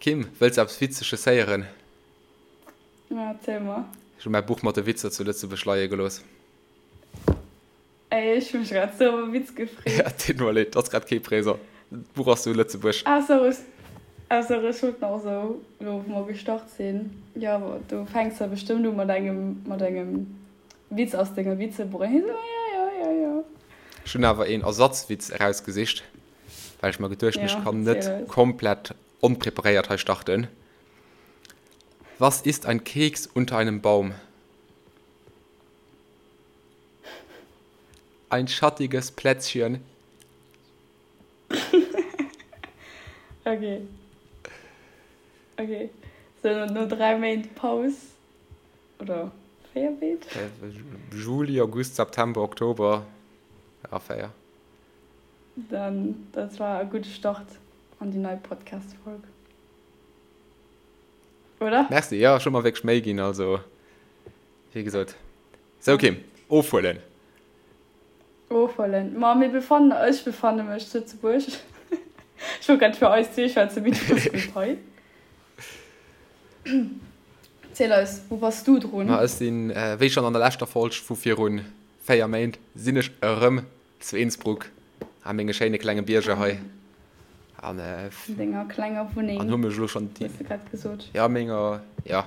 Kim, wëlls de eppes Witzeges héieren? Ja, erziel mer. Ech hu mäi Buch mat de Witzer zu Lëtzebuerg leie gelooss. Ey, ech hu mech grad sou op e Witz gefreet. Ja, deet mer leed, ass grad kee présent. D'Buch ass zu Lëtzebuerg. Ah, sorry, ah, sorry, ech wollt nach sou, elo wou mer gestart sinn, jo, du fänks jo bestëmmt u mat engem, mat engem Witz aus denger Witzebuch. An hie sou, jo, jo, jo, jo. Ech hunn awer een Ersatzwitz erausgesicht, well ech mer geduecht hunn, ech kann net komplett onpreparéiert hei starten. Was ist ein Keks unter einem Baum? Ein schattiges Plätzchen. Okay. Okay. So, no 3 Méint Paus oder 4 Méint? Juli, August, September, Oktober, ja, 4. Dann, dat war e gudde Start an déi nei Podcast-Folg. Oder? Merci, jo, ech hu mer wierklech Méi ginn, also, wéi gesot. Sou, Kim, ofhuelen. Ofhuelen. Ma mir befannen, ech befanne mech zu Lëtzebuerg. Ech wollt grad fir eis zwee schwätzen, mee du bass net hei. Ziel eis, wou bass du drun? Ma ech sinn, wéi schonn an der leschter Folg vu virun 4 Méint, sinn ech erëm Zu Innsbruck, a menge schéine klenge Bierger hei. An denger klenger Wunneng. An hu mech elo schonn déi. Hues de grad gesot. Jo, menger, jo,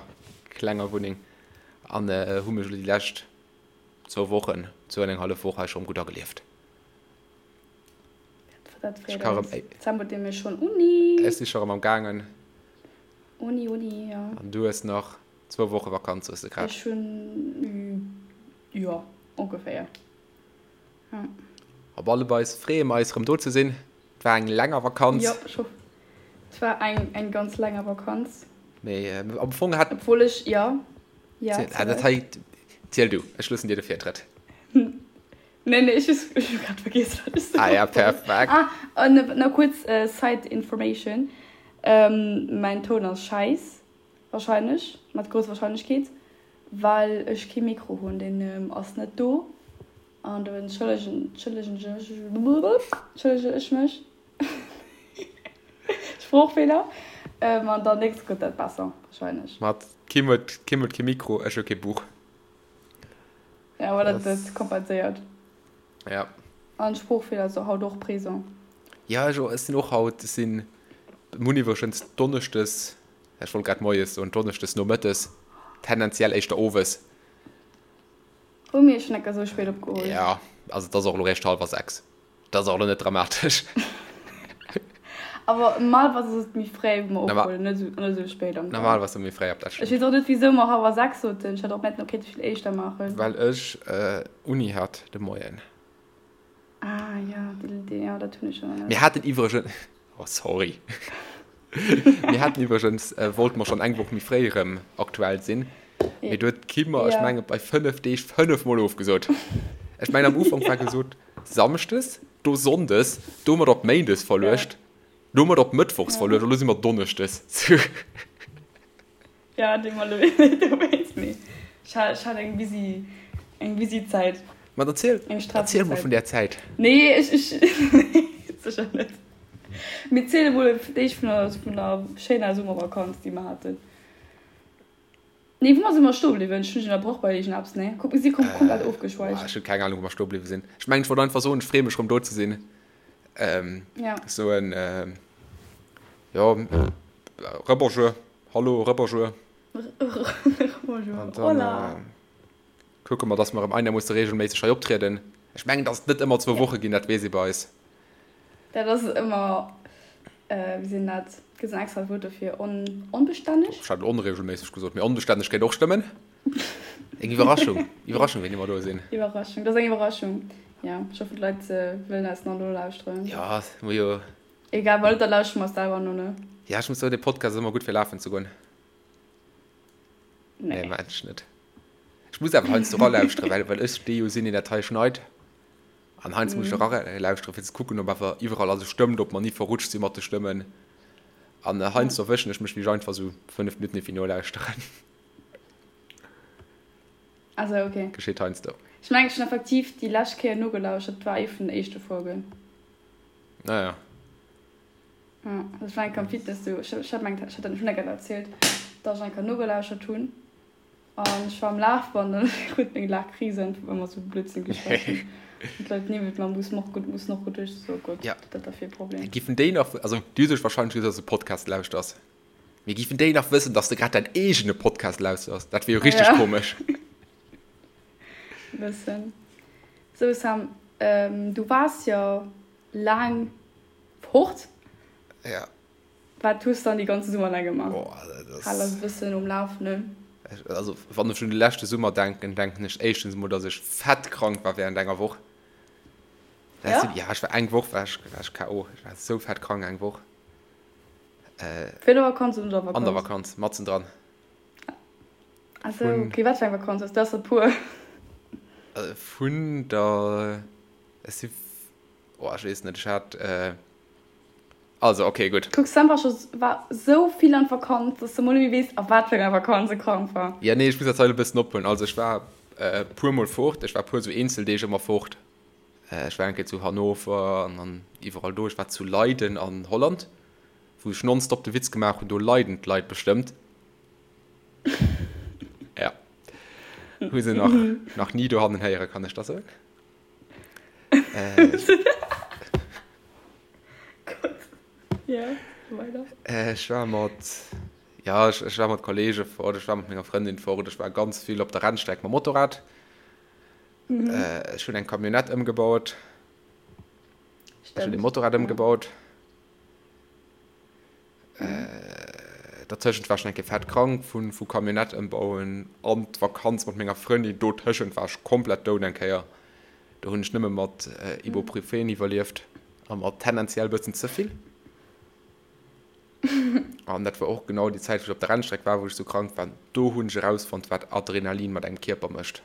klenger Wunneng. An hu mech elo déi lescht zwou Wochen, zwou an eng hallef Woch hei schonn gutt agelieft. Dat freet eis. Dezember huet nämlech schonn Uni. Ech si scho rëm am gaangen. Uni, Uni, jo. An du hues nach zwou Woche Vakanz, hues de grad. Ech hunn, jo, ongeféier. Op alle Fall freeë mer eis rëm do ze sinn. Et war eng länger Vakanz. Jo, ech hoff. Et war eng eng ganz länger Vakanz. Mee am Fong hat. Obwuel ech, jo, jo, ziel. Dat hei, ziel du, ech loossen dir de Virtrëtt. Nee, nee, ech hu grad vergiess, wat ech soe wollt. Ah ja, perfekt. Ah, an nach kuerz Side Information, Mäin Toun ass schäiss, wahrscheinlech, mat grousser Wahrscheinlechkeet, well ech kee Mikro hunn, deen ass net do. An do entschëllegen entschëllege ech mech. Sproochfeeler. An dann nächst gëtt dat besser, wahrscheinlech. Mat Kim huet Kim huet kee Mikro, ech hu kee Buch. Ja, awer dat dat kompenséiert. Ja. An Sproochfeeler ass haut och présent. Ja, ech ech sinn och haut, ech sinn, mir hunn iwwregens donneschdes, ech wollt grad moies soen, donneschdes nomëttes, tendenziell éischter owes. Hu mir schon enker sou spéit opgeholl. Ja, also et ass och elo réischt hallwer 6. Dat ass och elo net dramatesch. Awer normalerweis ass et méi fréi wou mer ophuelen, net esou net esou spéit am Dag. Normalerweis méi fréi, dat stemmt. Ech weess och net wisou mer hallwer 6 soten, ech hätt och märten kéinte vill éischter maachen. Well ech Uni hat de Moien. Ah jo, déi, jo dat hunn ech schonn. Mir haten iwwregens, oh sorry, mir haten iwwregens, wollte mer schonn eng Woch méi fréi erëm aktuell sinn, mee do huet d'Kim mer, ech menge bei 5 Deeg 5 mol ofgesot. Ech mengen am Ufank war gesot Samschdes, do Sonndes, do hu mer et op Méindes verluecht, do hu mer et op Mëttwochs verluecht, elo si mer Donneschdes. Ja, dee mer elo dowéinst, mee ech hat, ech hat eng busy, eng busy Zäit. Ma dann ziel, Eng stresseg erziel mol Zäit. vun där Zäit. Nee, ech, ech, nee, sécher net. Mee ziel emol fir d'éischt vun der, vun der schéiner Summervakanz, déi mer haten. Nee, wou mer si mer stoe bliwwen? Ech hunn dech ënnerbrach bei iergendeppes, nee? Kuck, mir si kom komplett Boah, ofgeschweift. ech hunn keng Ahnung, wou mer stoe bliwwe sinn. Ech mengen, ech wollt einfach soen, ech freeë mech rëm do ze sinn. Ähm, Ja. soen, ähm, jo, Rebonjour. Hallo, Rebonjour. Rebonjour. An dann Hola. kucke mer, dass mer erëm einermoosse regelméisseg hei optrieden. Ech mengen, dass et net ëmmer zwou Ja. Woche ginn, dat weess ee bei eis. Dat ass ëmmer, wéi seet een dat, gëtt et en extrat Wuert dofir, on, onbestänneg? Ech hat elo onregelméisseg gesot, mee onbestänneg kéint och stëmmen. Eng Iwwerraschung, Iwwerraschung, wéini mer do sinn. Iwwerraschung, dat ass eng Iwwerraschung. Ja, ech hoffen, d'Leit wëllen eis nach nolauschteren. Ja, mir jo. Egal, well da lauschtere mer selwer no, ne? Ja, ech muss soen, dee Podcast ass ëmmer gutt fir lafen ze goen. Nee. Nee, mengen ech net. Ech muss awer heiansdo eralauschteren, well, well ech dee jo sinn, deen dat hei schneit. An heiansdo muss ech eralauschteren, fir ze kucken, ob awer iwwerall alles stëmmt, ob mer ni verrutscht si mat de Stëmmen. An heiansdo erwëschen ech mech, wéi ech einfach esou 5 Minutten iergendwéi nolauschteren. Also, okay. Geschitt heiansdo. Ech mengen, ech hunn effektiv déi lescht Kéier nogelauschtert, dat war ee vun den éischte Folgen. Naja. Ja, ech war eng Kéier am Fitness, du, ech hat mengt, ech hat dat schon eng Kéier erzielt, dass ech eng Kéier nogelauschert hunn an ech war am Lafband an ech krut meng Laachkrise einfach well mer sou Blödsinn geschwat hunn an d'Leit niewent mer mussen och mussen och geduecht so Gott, Ja. wat dat da fir e Problem. Giffen déi nach, also déi hu sech wahrscheinlech gesot, dass du Podcast lauschters, mee giffen déi nach wëssen, dass de grad däin eegene Podcast lauschters? Dat wier jo richteg Ja. komesch. Bëssen. Sou Sam, du waars jo laang Fort? Ja. Wat hues dann déi ganze Summer laang gemaach? Oh, dat ass. Hal eis e bëssen um Lafenden. Also, wann ech un de leschte Summer denken, denken ech éischtens emol, dass ech fett krank war während enger Woch. Ja? Ja, ech war eng Woch war ech, war ech KO. Ech war esou fett krank eng Woch. Fir der Vakanz oder un der Vakanz? An der Vakanz, matzen dran. Ah sou, okay. Wat fir eng Vakanz ass dat? Der puer. Vun der, ech si Oh, ech weess net, ech hat, also ok, gutt. Kuck, Sam war scho war sou vill an Vakanz, dass de mol net méi weess, a wat fir enger Vakanz e krank war. Jo, nee, ech muss dat hei e bëssen ophuelen. Also ech war e puer mol fort, ech war e puer sou Eenzeldeeg ëmmer fort. Ech war eng Kéier zu Hannover an an iwwerall do. Ech war zu Leiden an Holland, wou ech nonstop de Witz gemaach hunn, do leiden d'Leit bestëmmt. Ja, hu se nach nach ni dohannen héieren, kann ech da soen. Ech war mat, ja, ech war mat Kollege fort, ech war mat menger Frëndin fort, ech war ganz vill op der Rennstreck mam Motorrad. Ech hunn eng Camionnette ëmgebaut. Ech hunn e Motorrad ëmgebaut. Dertëschent war ech nach eng Kéier fett krank vu vu Camionnette ëmbauen an d'Vakanz mat menger Frëndin. Dotëschent war ech komplett down eng Kéier. Do hunn ech nëmme mat Ibuprofen iwwerlieft a mat tendenziell bëssen ze vill. An dat war och genau déi Zäit, wou ech op der Rennstreck war, wou ech sou krank war. Do hunn ech erausfonnt, wat Adrenalin mat engem Kierper mécht.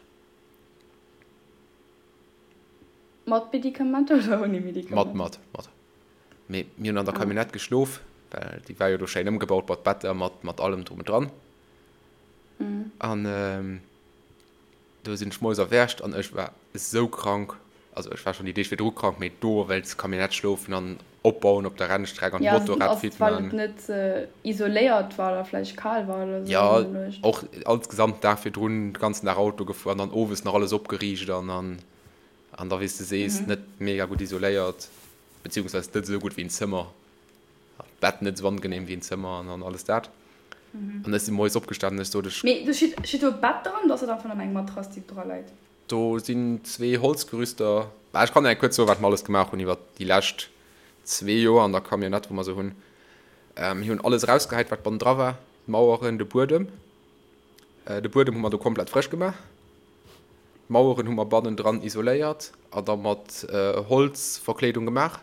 Mat Medikamenter oder ouni Medikamenter? Mat, mat, mat. Mee mir hunn an der Camionnette geschlof, well déi war jo do schéin ëmgebaut mat Better, mat, mat allem drum und dran. An do sinn ech moies erwächt an ech war esou krank, also ech war schonn déi Deeg virdru krank, mee do wéinst Camionnette schlofen an opbauen op der Rennstreck an d'Motorrad fit man. Ja, well et net isoléiert war oder vläicht kal war oder esou. Ja, och insgesamt den Dag virdrun de ganzen Dag Auto gefuer an dann owes nach alles opgeriicht an an an da wéi s de sees net mega gutt isoléiert. Beziehungsweise net esou gutt wéi en Zëmmer, d'Bett net esou angenehm wéi en Zëmmer an alles dat. An ech si moies opgestanen an ech sot, ech. Mee do steet, steet do e Bett dran oder ass dat einfach nëmmen eng Matrass, déi dra läit? Do sinn zwee Holzgerüster. Bah, ech kann der kuerz soen, wat mer alles gemaach hunn iwwer déi lescht zwee Joer an der Camionnette, wou mer se hunn. Mir hunn alles erausgehäit, wat bannendra war, d'Maueren, de Buedem. De Buedem hu mer do komplett frësch gemaach. D'Maueren hu mer bannendran isoléiert a da mat Holzverkleedung gemaach.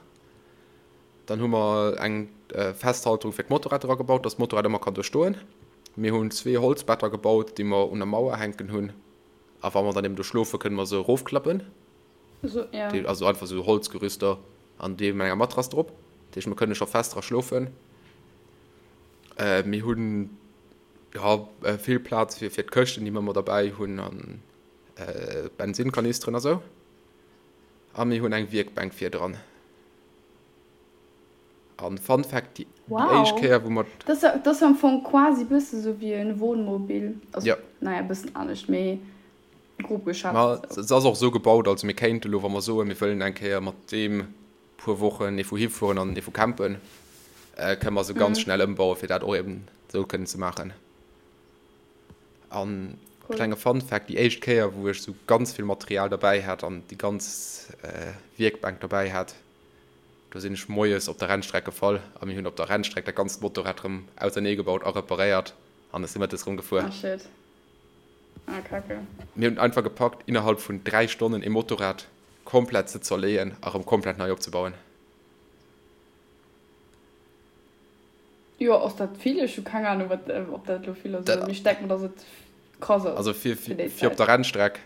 Dann hu mer eng Festhalterung fir d'Motorrad dra gebaut, dass d'Motorrad ëmmer kann do stoen. Mir hunn zwee Holzbetter gebaut, déi mer un der Mauer hänken hunn. A wa mer dann eben do schlofen, kënne mer se erofklappen. Also einfach esou Holzgerüster an déi mat enger Matrass drop. Dat heescht, mer kënne scho fest dra schlofen. Mir hunn Jo, vill Plaz fir fir d'Këschten, déi mer ëmmer derbäi hunn an Bensinnkanisteren a sou. A mir hunn eng Wierkbänk virdran. An Fun Fact, déi éischt Kéier, wou mer. Dat ass jo am Fong quasi bësse sou wéi e Wohnmobil. Also, naja, e bëssen anescht, mee grob geschätzt. Ma se ass och esou gebaut, also mir kéinte lo, wa mer soen, mir wëllen eng Kéier mat deem puer Wochen ee vu hifueren an ee vu campen, kënne mer se ganz schnell ëmbauen, fir dat och eben esou kënnen ze maachen. An klenge Fun Fact, déi éischt Kéier, wou ech esou ganz vill Material derbäi hat an déi ganz Wierkbänk derbäi hat, do sinn ech moies op der Rennstreck gefall a mir hunn op der Rennstreck dat ganzt Motorrad erëm ausernee gebaut a reparéiert an ech si mëttes erëm gefuer. Ah shit. Ah kacke. Mir hunn et einfach gepackt, innerhalb vun 3 Stonnen ee Motorrad komplett ze zerleeën a rëm komplett nei opzebauen. Jo, ass dat vill? Ech hu keng Ahnung, wat, ob dat elo vill ass oder net. Mee ech denken mer, dass et krass ass Also fir, fir déi fir op Zäit. der Rennstreck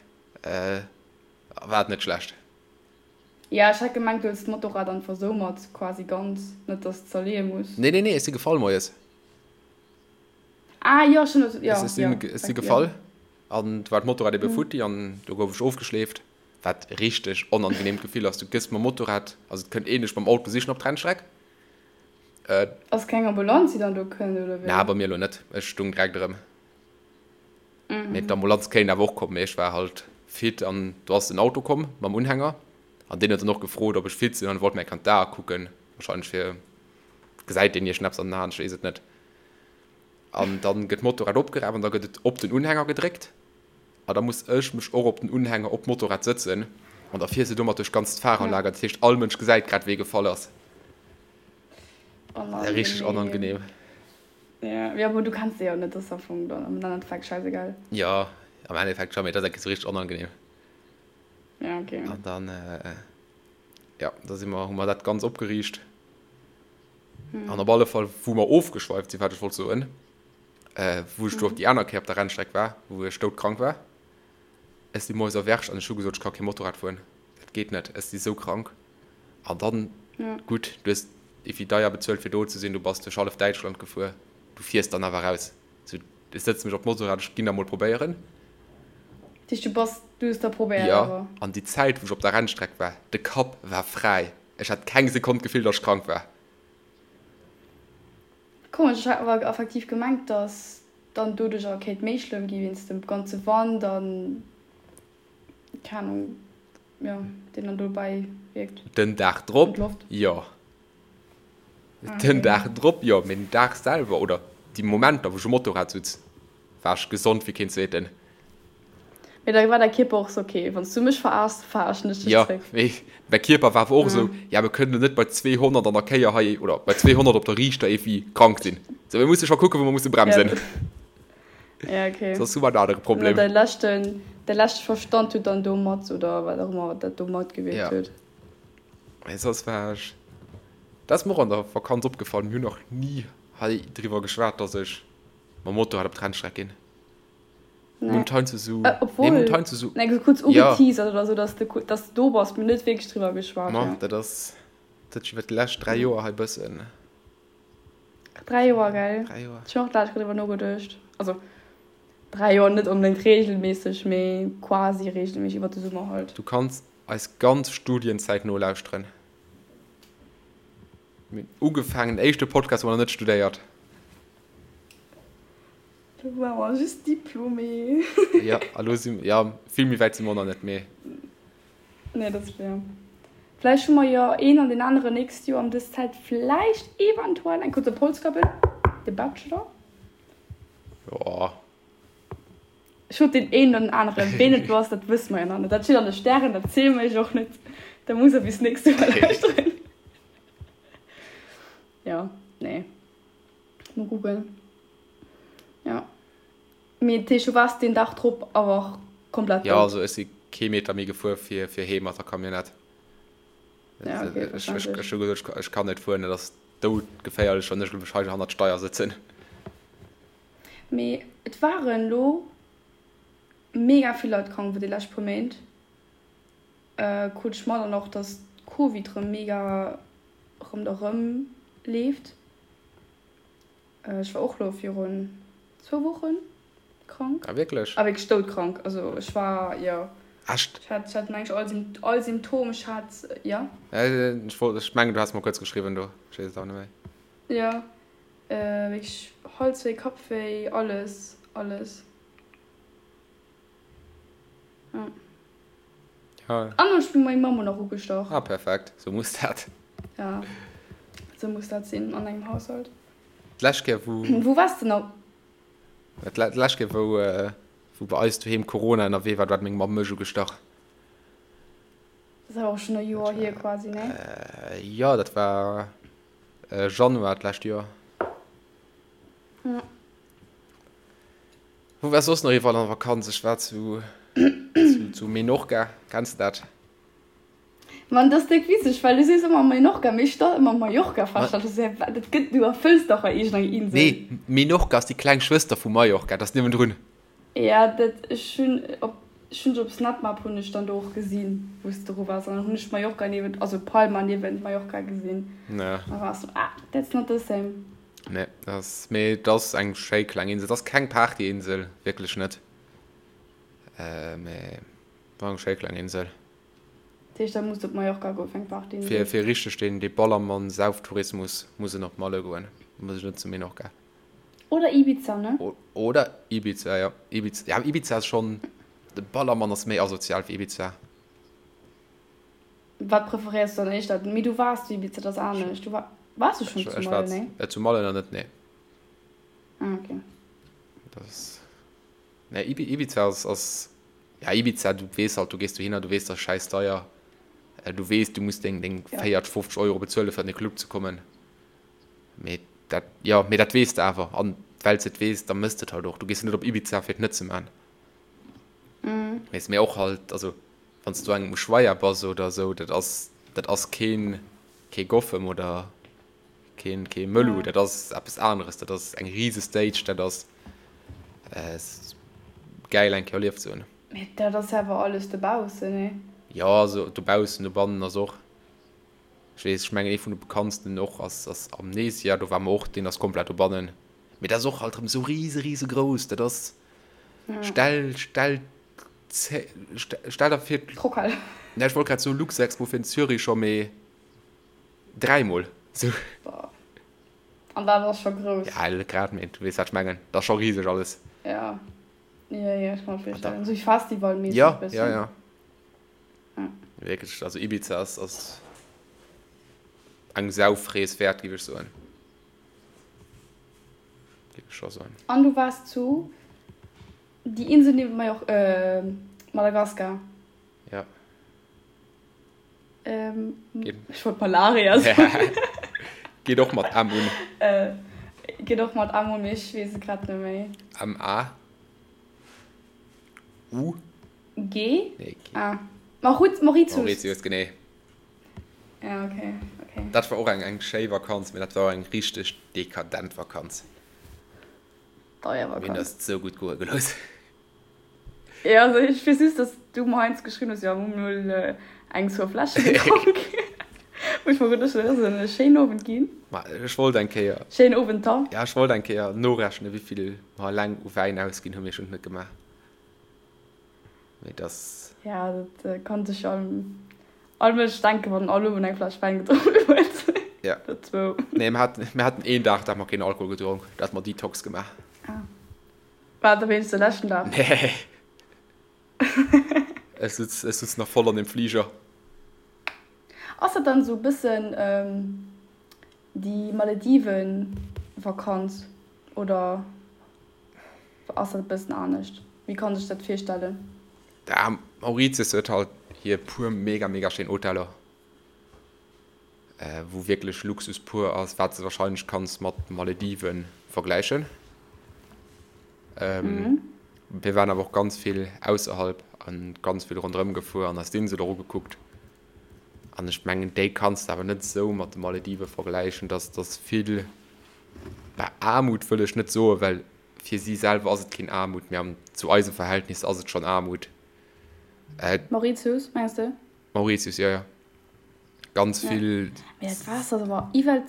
war et net schlecht. Ja, ech hat gemengt, du hues d'Motorrad einfach sou mat, quasi ganz, net dass de zerleeë muss. Nee, nee, nee, ech si gefall moies. Ah jo, schon, jo, Ech sinn, jo, ech si jo. gefall an du war d'Motorrad ebe futti an do gouf ech ofgeschleeft, wat richteg onangenehmt Gefill ass. Du gëss mam Motorrad, also et kënnt een dech mam Auto sichen op d'Rennstreck. Ass keng Ambulanz déi dann do kënnt oder wéi? Na, bei mir elo net, ech stung direkt erëm. Mee d'Ambulanz kéint awer och kommen, mee ech war halt fit an do ass en Auto komm mam Unhänger an deen huet dann och gefrot, ob ech fit sinn an wollt mir eng Kéier d'Ae kucken, wahrscheinlech fir gesäit deen iergendeppes an den Aen, ech weess et net. An dann gëtt d'Motorrad opgeraf an da gëtt et op den Unhänger gedréckt a da muss ech mech och op den Unhänger op d'Motorrad sëtzen an da fiers de domat duerch d'ganz Fahrerlager, dat heescht all Mënsch gesäit grad wee gefall ass. Richteg onangenehm. Ja, ja, bon, du kenns se jo net, das ass am Fong dann am Endeffekt scheißegal. Jo, am Endeffekt schon, mee dat ass enke sou richteg onangenehm. Ja, okay. An dann, ja, da si mer, hu mer dat ganz opgeriicht. An op alle Fall, wou mer ofgeschweift sinn, wat ech wollt soen, wou ech do op déi aner Kéier op der Rennstreck war, wou ech doudkrank war, ech si moies erwächt an ech hu gesot, ech ka kee Motorrad fueren, dat geet net, ech si sou krank. An dann, gutt, du hues iwwi deier bezuelt fir do ze sinn, du bass duerch hallef Däitschland gefuer, du fiers dann awer raus. Sou, ech sëtze mech op d'Motorrad, ech ginn da mol probéieren. Dat heescht, du bass, du hues da probéiert Jo, awer? an déi Zäit, wou ech op der Rennstreck war, de Kapp war fräi, ech hat keng Sekonn d'Gefill, datt ech krank war. Komesch, ech hat awer effektiv gemengt, datt dann doduerch awer kéint méi schlëmm gi wéinst dem ganze Wand an, keng Ahnung. Jo, deen dann dobäi wierkt. Den Dag drop, jo. Den Dag drop, jo. Mee den Dag selwer oder déi Momenter, wou ech um Motorrad sutz, war ech gesond wéi keen Zweeten. Mee da war däi Kierper och sou, ok, wann s du mech veraarschs, veraarschen ech dech zréck. Jo, mee mäi Kierper war awer och esou, ja, mir kënnen elo net bei 200 an der Kéier hei oder bei 200 op der Riichter iergendwéi krank sinn. Sou, mir musse scho kucken, wou mer musse bremsen. Ja, okay. Soss hu mer en anere Problem. Däi leschten, däi leschte Verstand huet dann do mat, oder wat och ëmmer dat do matgewierkt ja. huet. Mee soss war ech, dat ass mir och an der Vakanz opgefall, mir hunn nach ni hei driwwer geschwat, dass ech mam Motorrad op d'Rennstreck ginn. Nee. Mir hunn heiansdo sou, äh, obwohl, nee, mir hunn heiansdo sou, nee, so kurz ugeteasert ja. oder sou, dass du, dass du do bass, mir net wierklech driwwer geschwat. Ma, ja. dat ass, dat huet sech iwwer déi lescht 3 Joer hei bëssen. 3 Joer, gell? 3 Joer. Ech hunn och d'lescht driwwer nogeduecht. Also 3 Joer net onbedéngt reegelméisseg, mee quasi reegelméisseg iwwer de Summer halt. Du kanns eis ganz Studienzäit nolauschteren. Mir hunn ugefaangen, den éischte Podcast, wou mer nach net studéiert. Do ware mer just Diplômé. Jo, a lo si, jo, vill méi wäit si mer och nach net, mee. Nee, dat ass fair. Vläicht hu mer jo een an deen aneren nächst Joer ëm dës Zäit vläicht eventuell eng kuerz op Holz kappen. De Bachelor. Jo. Ech sot deen een oder den aneren. Ween et elo ass, dat wësse mer jo nach net. Dat steet an de Stären, dat ziele mer iech och net. Da musst der bis nächst Joer lauschteren. Jo, nee. Mol kucken. Jo. Mee dat heescht, du waars deen Dag drop awer och komplett dout? Jo, also ech si kee Meter méi gefuer fir fir heem mat der Camionnette. Ja, okay, ech, ech, ech hu gesot, ech kann net fueren, et ass doudgeféierlech, wann ech elo mech hei hannert d'Steier sëtzen. Mee et waren elo mega vill Leit krank iwwer déi lescht puer Méint. Krut ech mat an och, dass Covid rëm mega ronderëm leeft. Ech war och lo virun zwou Wochen krank. Ah wierklech? Ah wierklech doudkrank. Also ech war, jo. Echt? Ech hat, ech hat mengen ech all all Symptom, ech hat, jo. Ech wollt, ech mengen du has mer kuerz geschriwwen do, ech weess et awer net méi. Jo, wierklech Halswéi, Kappwéi, alles, alles. Ja. Ja. An ech hunn meng Mamm och nach ugestach. Ah perfekt, sou muss dat. Ja, sou muss dat sinn an engem Haushalt. D'lescht Kéier wou. Wou waars de nach? D'lescht Kéier wou wou bei eis doheem Corona ënnerwee war, do hat meng Mamm mech ugestach. Dat ass awer och schonn e Joer hier quasi, ne? Jo, dat war Januar d'lescht Joer. Ja. Wou war soss nach iwwerall an der Vakanz? Ech war zu, zu, zu Menorca. Kenns de dat? Mann, dat ass déck witzeg, well du sees ëmmer Menorca, mee ech stall ëmmer Mallorca fest. Dat ass ja, dat gëtt, du erfëlls dach hei iergendeng Insel. Nee, Menorca ass déi kleng Schwëster vu Mallorca, dat ass niewendrun. Ja, dat, ech hunn op, ech hunn op Snapmap hunn ech dann do och gesinn, wou s de dru waars, an dann hunn ech Mallorca niewent, also Palma niewent Mallorca gesinn. Ja. Da war ech sou, ah, that's not the same. Nee, dat ass, mee et ass eng schéi kleng Insel. Et ass keng Partyinsel, wierklech net, mee war eng schéi kleng Insel. Dat heescht, da muss de op Mallorca goen fir eng Party. Fir, fir richteg deen, dee Ballermann-Sauftourismus muss en op Malle goen, muss ech net zu Menorca. Oder Ibiza, ne? Oder Ibiza, jo. Ibiza, ja, Ibiza ass schonn, de Ballermann ass méi asozial wéi Ibiza. Wat preferéiers du dann éischter? Mee du waars zu Ibiza, dat ass anescht. Du war, waars du schonn zu Malle, nee? Ech war zu Malle nach net, nee. Ah, okay. Dat ass, nee, Ibiza ass, ass, ja, Ibiza, du weess halt, du gees dohinner, du weess, dat ass schäiss deier. Du weess, du muss deng, deng 40, 50 Euro bezuelen, fir an de Club ze kommen. Mee dat, jo, mee dat weess de awer. An well s de et weess, da mëss de et halt och. Du gees jo net op Ibiza, fir et net ze man. Weess, mee och halt, also wann s du engem Ushuaia bass oder esou, dat ass, dat ass keen, kee Goffem oder keen, kee Mëllu, dat ass eppes aneres. Dat ass eng rise Stage, dat ass gäil eng Kéier erlieft ze hunn. Mee dat ass awer alles dobaussen, nee? Jo, also dobaussen, dobannen ass och. Ech weess, ech mengen ee vun de bekanntsten och ass ass Amnesia, do ware mer och, deen ass komplett dobannen. Mee dat ass och halt erëm esou rise rise grouss, dat ass, stell stell stell der vir, D'Rockhal. Ne, ech wollt grad soe Luxexpo fir den Zürich scho, mee dräimol esou. Boah. An dat ass scho grouss. Ja, net grad, mee du weess wat ech mengen, dat ass scho riseg alles. Ja, jo, jo, ech kann mer virstellen, esou festivalmässeg Ja, ja, bëssen. ja. Wierklech, also Ibiza ass, ass eng Saufrees wäert, géif ech soen. Géif ech scho soen. An du waars zu déi Insel niewent Major, äh, Madagaskar. Ja. Ähm, Geet. Ech wollt Malaria soen. Geet och mat M un. Äh, geet och mat M un, mee ech weess et grad net méi. M A U. G? Nee, G. Ah. Mauritius. Mauritius, genee. Ja, okay, okay. Dat war och eng, eng schéi Vakanz, mee dat war och eng richteg dekadent Vakanz. Deier Vakanz. Mir hunn eis et sou gutt goe gelooss. Ja, also ech weess just, dass du mer heiansdo geschriwwen hues, jo, mir hunn mol eng, zwou Fläsche gedronk. Wou ech mer geduecht hunn, dat ass e schéinen Owend ginn. Ma ech wollt eng Kéier. Schéinen Owend da. Ja, ech wollt eng Kéier norechnen, wéi vill mer eleng u Wäin ausginn hunn, mee ech hunn et net gemaach. Mee dass. Ja, dat kann sech jo all Mënsch denken, wann en all Owend eng Fläsch Wäin gedronk huet. Ja. Oder zwou. Nee, mir haten, mir haten een Dag, da hu mer keen Alkohol gedronk. Da hate mer Detox gemaach. Ah. War et da wéinst de leschten Dag? Nee. Ech sutz, ech sutz nach voll an dem Fliger. Ass dat dann esou e bëssen déi Malediven-Vakanz oder? Ass dat e bëssen anescht? Wéi kann sech dat virstellen? Da Mauritius huet halt hir puer mega mega schéin Hoteller, wou wierklech Luxus pur ass, wat s de wahrscheinlech kanns mat Malediven vergläichen. Mir waren awer och ganz vill ausserhalb an ganz vill ronderëm gefuer an eis d'Insel och ugekuckt. An ech mengen déi kanns de awer net esou mat de Maledive vergläichen, dass dass vill Bah, Aarmut wëll ech net soen, well fir si selwer ass et keen Aarmut, mee zu eise Verhältnisser ass et schonn Aarmut. Mauritius, mengs de? Mauritius, jo, jo. Ganz vill. Mee dat Waasser ass awer iwwel,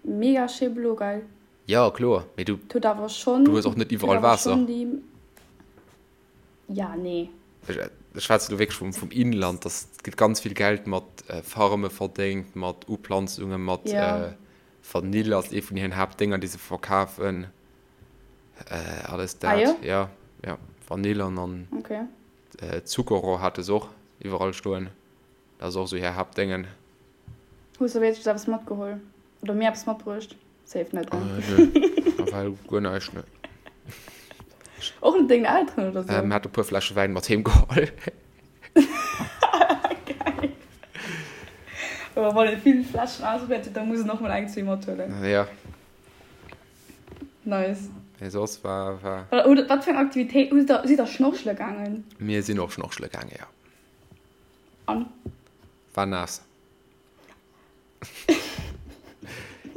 mega schéi blo, gell? Jo, kloer, mee du, Et huet awer schonn, du hues och net et huet iwwerall awer Waasser. schonn déi, ja, nee. Ech schwätze lo wierklech vum, vum Inland, dass et gëtt ganz vill Geld mat Farme verdéngt, mat Uplanzungen, mat Ja. Vanill ass ee vun hiren Haaptdénger, déi se verkafen. Alles Ah dat. jo? Ja, ja. Vanill an an Okay. Zuckerrohr hate se och iwwerall stoen. Dat ass och esou hir Haaptdéngen. Hues de wéinstens eppes matgeholl? Oder mir eppes matbruecht? Safe net, ne? Nö, nawell guer näischt, ne. Och net dengen Elteren oder sou? Mir hate e puer Fläsche Wäin mat heem geholl. Geil. Aber wann ee vill Fläschen ausprobiert huet, da muss en och mol eng, zwee mathuelen. Ja. Nice. Mee soss war, war. Oder wat fir eng Aktivitéit hutt der, sidd der schnorchele gaangen? Mir sinn och schnorchele gaangen, ja. An? War naass.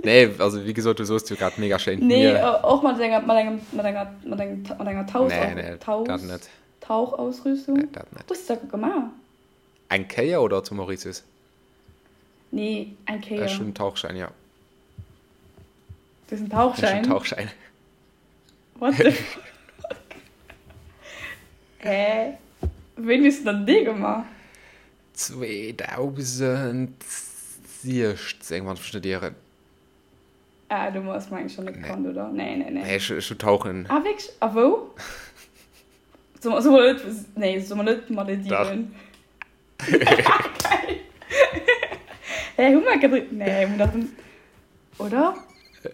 Nee, also wéi gesot, du soos jo grad mega schéint Mier. Nee, och mat enger, mat engem, mat enger, mat engem, mat enger Tauch, Nee, nee, Tauch, dat net. Tauchausrüstung. Nee, dat net. Hues de dat gemaach? Eng Kéier oder zu Mauritius? Nee, eng Kéier. Ech hunn en Tauchschäin, ja. Du hues en Tauchschäin? Ech hunn en Tauchschäin. What the fuck? Hä? Wéini hues de dann dee gemaach? 2016, wann ech mech net ieren. Ah, du hues meng ech schon net kannt, oder? Nee, nee, nee. Nee, ech, ech hu Tauchen. Ah, wierklech? A wou? So, so mol net, nee, so mol net Malediven. Dach. Geil. Hä, hu mer gedri-, nee, hu mer dach, oder?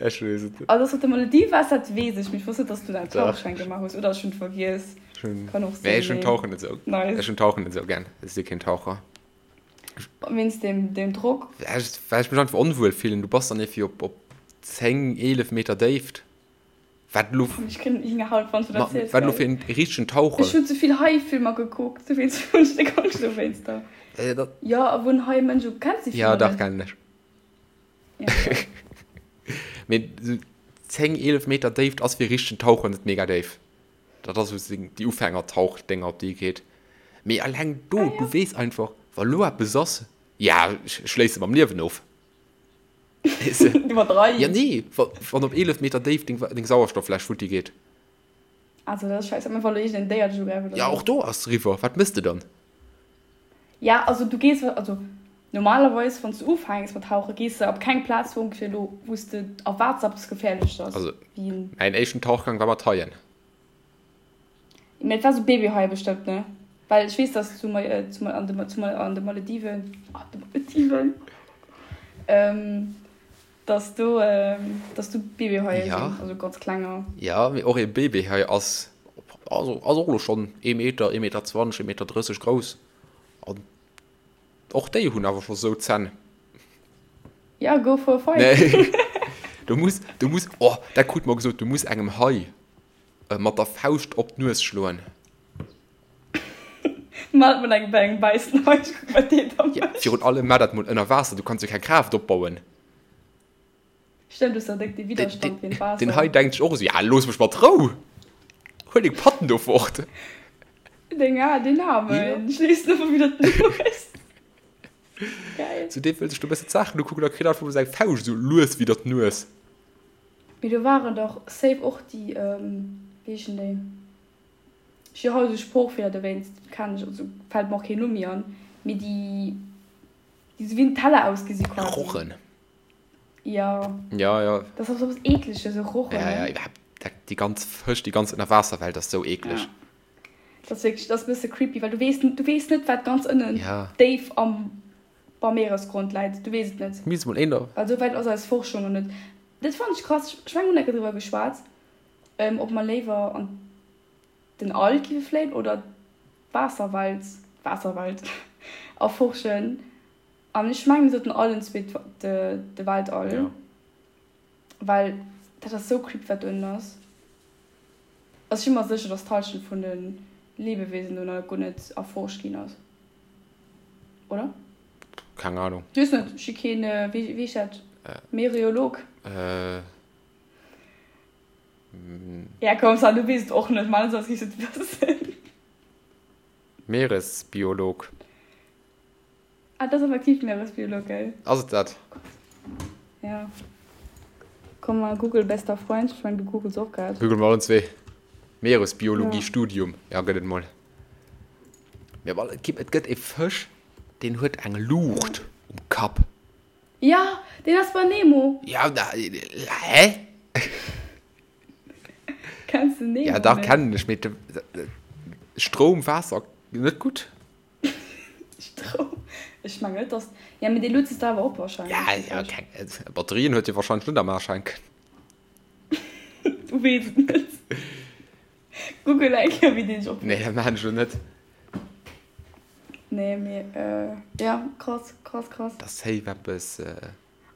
Ech weess et net. Also, dass du op de Maledive waars, dat weess ech, mee ech wosst net, dass du da en Tauchschein gemaach hues, oder ech hunn et vergiess. Ech hunn, Kann och nee, sinn, ech hunn mee Tauchen net esou, nice. ech hunn Tauchen net esou gär. Ech si keen Taucher. Wéinst dem, dem Drock? Well ech mech einfach onwuel fillen. Du bass dann ierfir op, op 10, 11 Meter Déift. Wat elo. Ech kréien Hingerhaut, wann s du dat ziels, Wat elo gell? fir en richtegen Taucher. Ech hunn ze vill Hai-Filmer gekuckt, dowéinst hunn ech déck Angscht dowéinster. Jo, a wou en Hai Mënsch u. Kenns déi Ja, Filmer dach, net? kennen ech. Ja, voilà. Mee esou 10, 11 Meter Déift ass fir e richtegen Taucher net mega déif. Dat ass esou déi Ufängertauchdénger, op déi ee geet. Mee eleng do, Ah, du ja. weess einfach, wa lo eppes ass, ja, ech schléisse mam Liewen of. Weess de? Iwwerdreiws. Ja, nee, wa, wann op 11 Meter Déift deng, deng Sauerstofffläsch futti geet. Also, dat ass scheiße. Mä wa lo iergendeen Déier dech ugräift oder Ja, sou. och do ass eriwwer. Wat mëss de dann? Ja, also du gees, also normalerweis, wann s du ufänks mat tauchen, gees de op keng Plaz, wou ongeféier elo, wou s de erwaarts, dass eppes Geféierleches ass. Also, Wéi en. mäin éischten Tauchgang war mat Haien. Mä et war sou Babyhaie bestëmmt, ne? Well ech weess, dass zu, zu, an de, zu, an de Malediven, an de Malediven, dass do, dass do Babyhaie sinn, Ja. also ganz klenger. Ja, mee och ee Babyhai ass, also ass och elo schonn ee Meter, ee Meter 20, ee Meter 30 grouss. An och déi hunn awer scho sou Zänn. Ja, go for a fight. Nee. Du muss, du muss, oh, dat krut mer gesot, du muss engem Hai mat der Fauscht op d'Nues schloen. Maat mol eng bei engem wäissen Hai, ech kucken wat deen da Ja, mécht. virun allem maach dat mol ënner Waasser, du kanns jo keng Kraaft opbauen. Stimmt, du hues da déck de Widderstand géint Den, den Waasser. Hai denkt sech och esou, ja looss mech mat Rou, huel deng Patten do fort. Deng, ah, deen Ja. Aarmen schléisst einfach wieder d'Nues. Geil. Zu deem wëll sech do e bësse d'Saachen ukucken a kritt einfach mol seng Fauscht esou lues widder d'Nues. Mee do waren dach safe och déi, wéi heeschen déi? Ech hu haut esou Sproochfeeler, dowéinst kennen ech, also fält mer och keen Numm méi an, mee déi, déi esou wéi en Teller ausgesi quasi. Rochen. Jo. Ja, ja. Dat ass och esou eppes Eekleges, esou Rochen, Ja, ja, ne? iwwerhaapt dat, déi ganz Fësch, déi ganz Ënnerwaasserwelt ass esou eekleg. Ja. Dat ass wierklech, dat ass e bësse creepy, well du weess, du weess net, wat ganz ënnen Ja. déif am, beim Meeresgrond läit. Du weess et net. Misst mol een der. Well esou wäit ass eis Forschung nach net. Dat fannen ech krass. Ech mengen, mir hunn enke driwwer geschwat, ob mer léiwer an den All géife fléien oder d'Waasserwelt, d'Waasserwelt erforschen. An ech mengen, mir sollten allen zwee de Weltall, Ja. well dat ass sou creepy, wat do ënnen ass. Also ech si mer sécher, dass d'Hallschent vun de Lebewesen do nach guer net erforscht ginn ass. Oder? Keng Ahnung. Ech weess net, ech si keen, wéi heescht dat, Mereolog? Äh. Ja komm Sam, du weess et och net, man, soss giffs et wëssen. Meeresbiolog. Ah, dat ass effektiv Meeresbiolog, gell? Ass et dat? Oh Gott. Ja. Komm mal, Google, bester Freund. Ech mengen, du googles och grad. Google mer allen zwee. Meeresbiologie Ja. Studium. Ja, gëtt et mol. Mee awer et gi, et gëtt e Fësch, deen huet eng Luucht um Kapp. Ja, deen ass bei Nemo. Ja, da, hä? Kenns de Nemo Ja, dach net? kennen ech, mee Stroum, Waasser, net gutt. Stroum, ech mengen net, dass, ja, mee dee luet sech da awer op wahrscheinlech, Ja, dee ja, Fësch. keng, Batterien huet hie wahrscheinlech net am Aschenken. Du weess et net. Google eng Kéier, wéi deen sech Nee, opluet. dat maachen ech elo net. Nee, mee ja, krass, krass, krass. Dat ass safe eppes.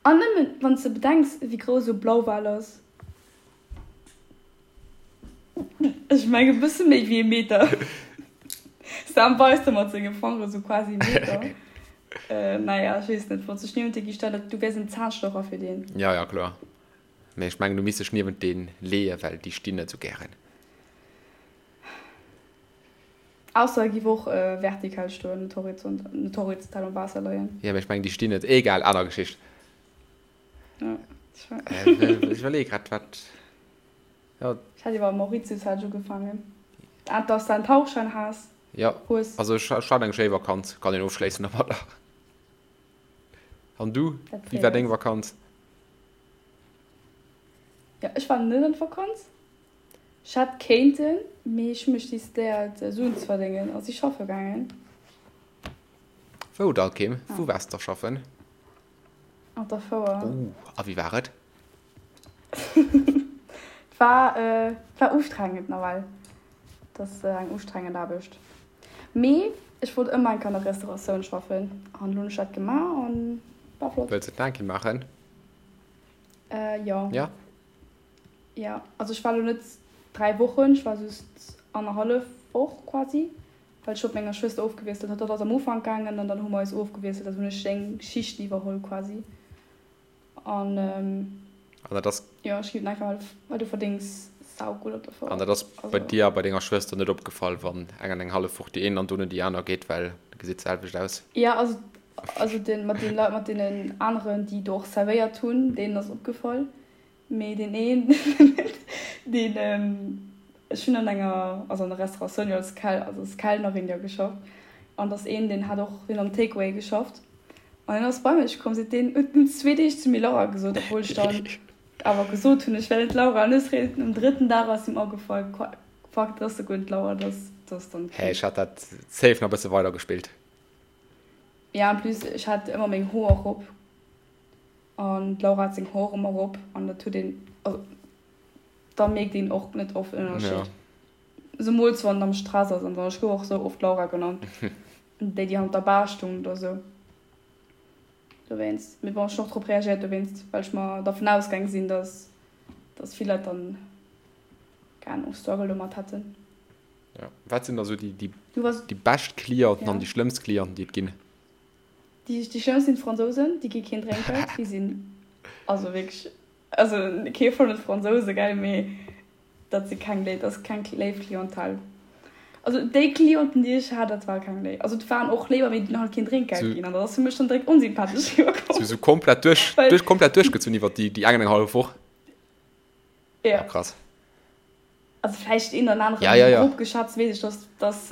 An nëmmen wann s de bedenks, wéi grouss esou e Blauwal ass. Ech mengen e bësse méi wéi e Meter. Sam weist da mat senge Fangere sou quasi e Meter. Naja, ech weess net, wann s dech niewent dee gi stell, du wäers en Zahnstocher fir deen. Ja, ja, kloer. Mee ech mengen, du misst dech niewent dee leeën, well déi stinn net sou gären. Ausser e giff och vertikal stoen, net horizont, net horizontal am Waasser leien. Jo, mee ech mengen, déi stinn net. Egal, aner Geschicht. Ja, ech war. Ech iwwerleeë grad, wat. Jo. Ech hat iwwer Mauritius hat ech ugefaangen. Ah, dass de en Tauchschein has. Jo, hues. also ech hat eng schéi Vakanz, kann een ofschléissen domadder. An du, Dat wéi war freet deng eis. Vakanz? Jo, ech war net an d'Vakanz. Ech hätt kéinten, mee ech hu mech decidéiert Suen ze verdéngen a si schaffe gaangen. Wou da, Kim? Wou waars de da schaffen? Op der Fouer. Oh, a wéi war et? Et war, et war ustrengend nawell. Et ass eng ustrengend Aarbecht. Mee ech wollt ëmmer eng Kéier an der Restauratioun schaffen an elo hunn ech dat gemaach an war flott. Wëlls de et nach eng Kéier maachen? Jo. Ja? Jo, also ech war elo net 3 Wochen, ech war just annerhallef Woch quasi, well ech hu mat menger Schwëster ofgewiesselt. Hatt ass am Ufank gaangen an dann hu mer eis ofgewiesselt, also hunn ech seng Schichten iwwerholl quasi. An An dat ass. jo, ech ginn et einfach, well du verdéngs saugutt op der An Fouer. dat ass bei Also. dir a bei denger Schwëster net opgefall, wann eng an eng hallef Woch déi een an dono déi aner geet, well dat gesäit d'selwecht aus? Jo, also also den mat den Leit, mat deenen aneren, déi do och servéiert hunn, deenen ass opgefall. Mee deen een, deen, ech hunn an enger, also an der Restauratioun jo als Kel, also als Kellnerin jo geschafft, an et ass een, deen hat och, deen am Takeaway geschafft, an deen ass bei mech komm, seet deen, huet en zwee Deeg zu mir Laura gesot, obwuel ech dann awer gesot hunn, ech wär net d'Laura, an ech réischt um drëtten Dag ass him agefall, fuck, dat ass souguer net d'Laura, dat ass, dat ass dann Hä, d'Kim. ech hat dat safe nach e bësse weider gespillt. Ja, en plus, ech hat ëmmer meng Hoer erop. An d'Laura hat seng Hoer ëmmer erop an dat huet een, also da mierkt een och net oft en Ënnerscheed. Zemools wann en am Stress ass an esou. Ech gouf och sou oft Laura genannt, déi déi hannert der Bar stoung oder sou. Dowéinst, mee bon, ech hunn och drop reagéiert dowéinst, well ech mer dervun ausgaang sinn, dass dass vill Leit dann, keng Ahnung, Struggle domat hätten. Jo, wat sinn da sou déi déi bescht Clienten an déi schlëmmst Clienten déi et ginn? Déi schlëmmst sinn d'Fransousen, déi gi keen Drénkgeld, déi sinn also wierklech, also kee vun de Fransouse gell, mee dat si keng léif, dat ass keng léif Clientèle. Also déi Clienten déi ech hat, dat war keng léif, also et waren och léiwer, mee déi hunn halt keen Drénkgeld ginn an dat ass fir mech dann direkt onsympathesch riwwerkomm. Sou komplett duerch, duerch komplett duerchgezunn iwwer déi eng an eng hallef Woch? Jo. Krass. Also vläicht een oder aneren, Ja, ja, ja. grob geschätzt weess ech, dass, dass,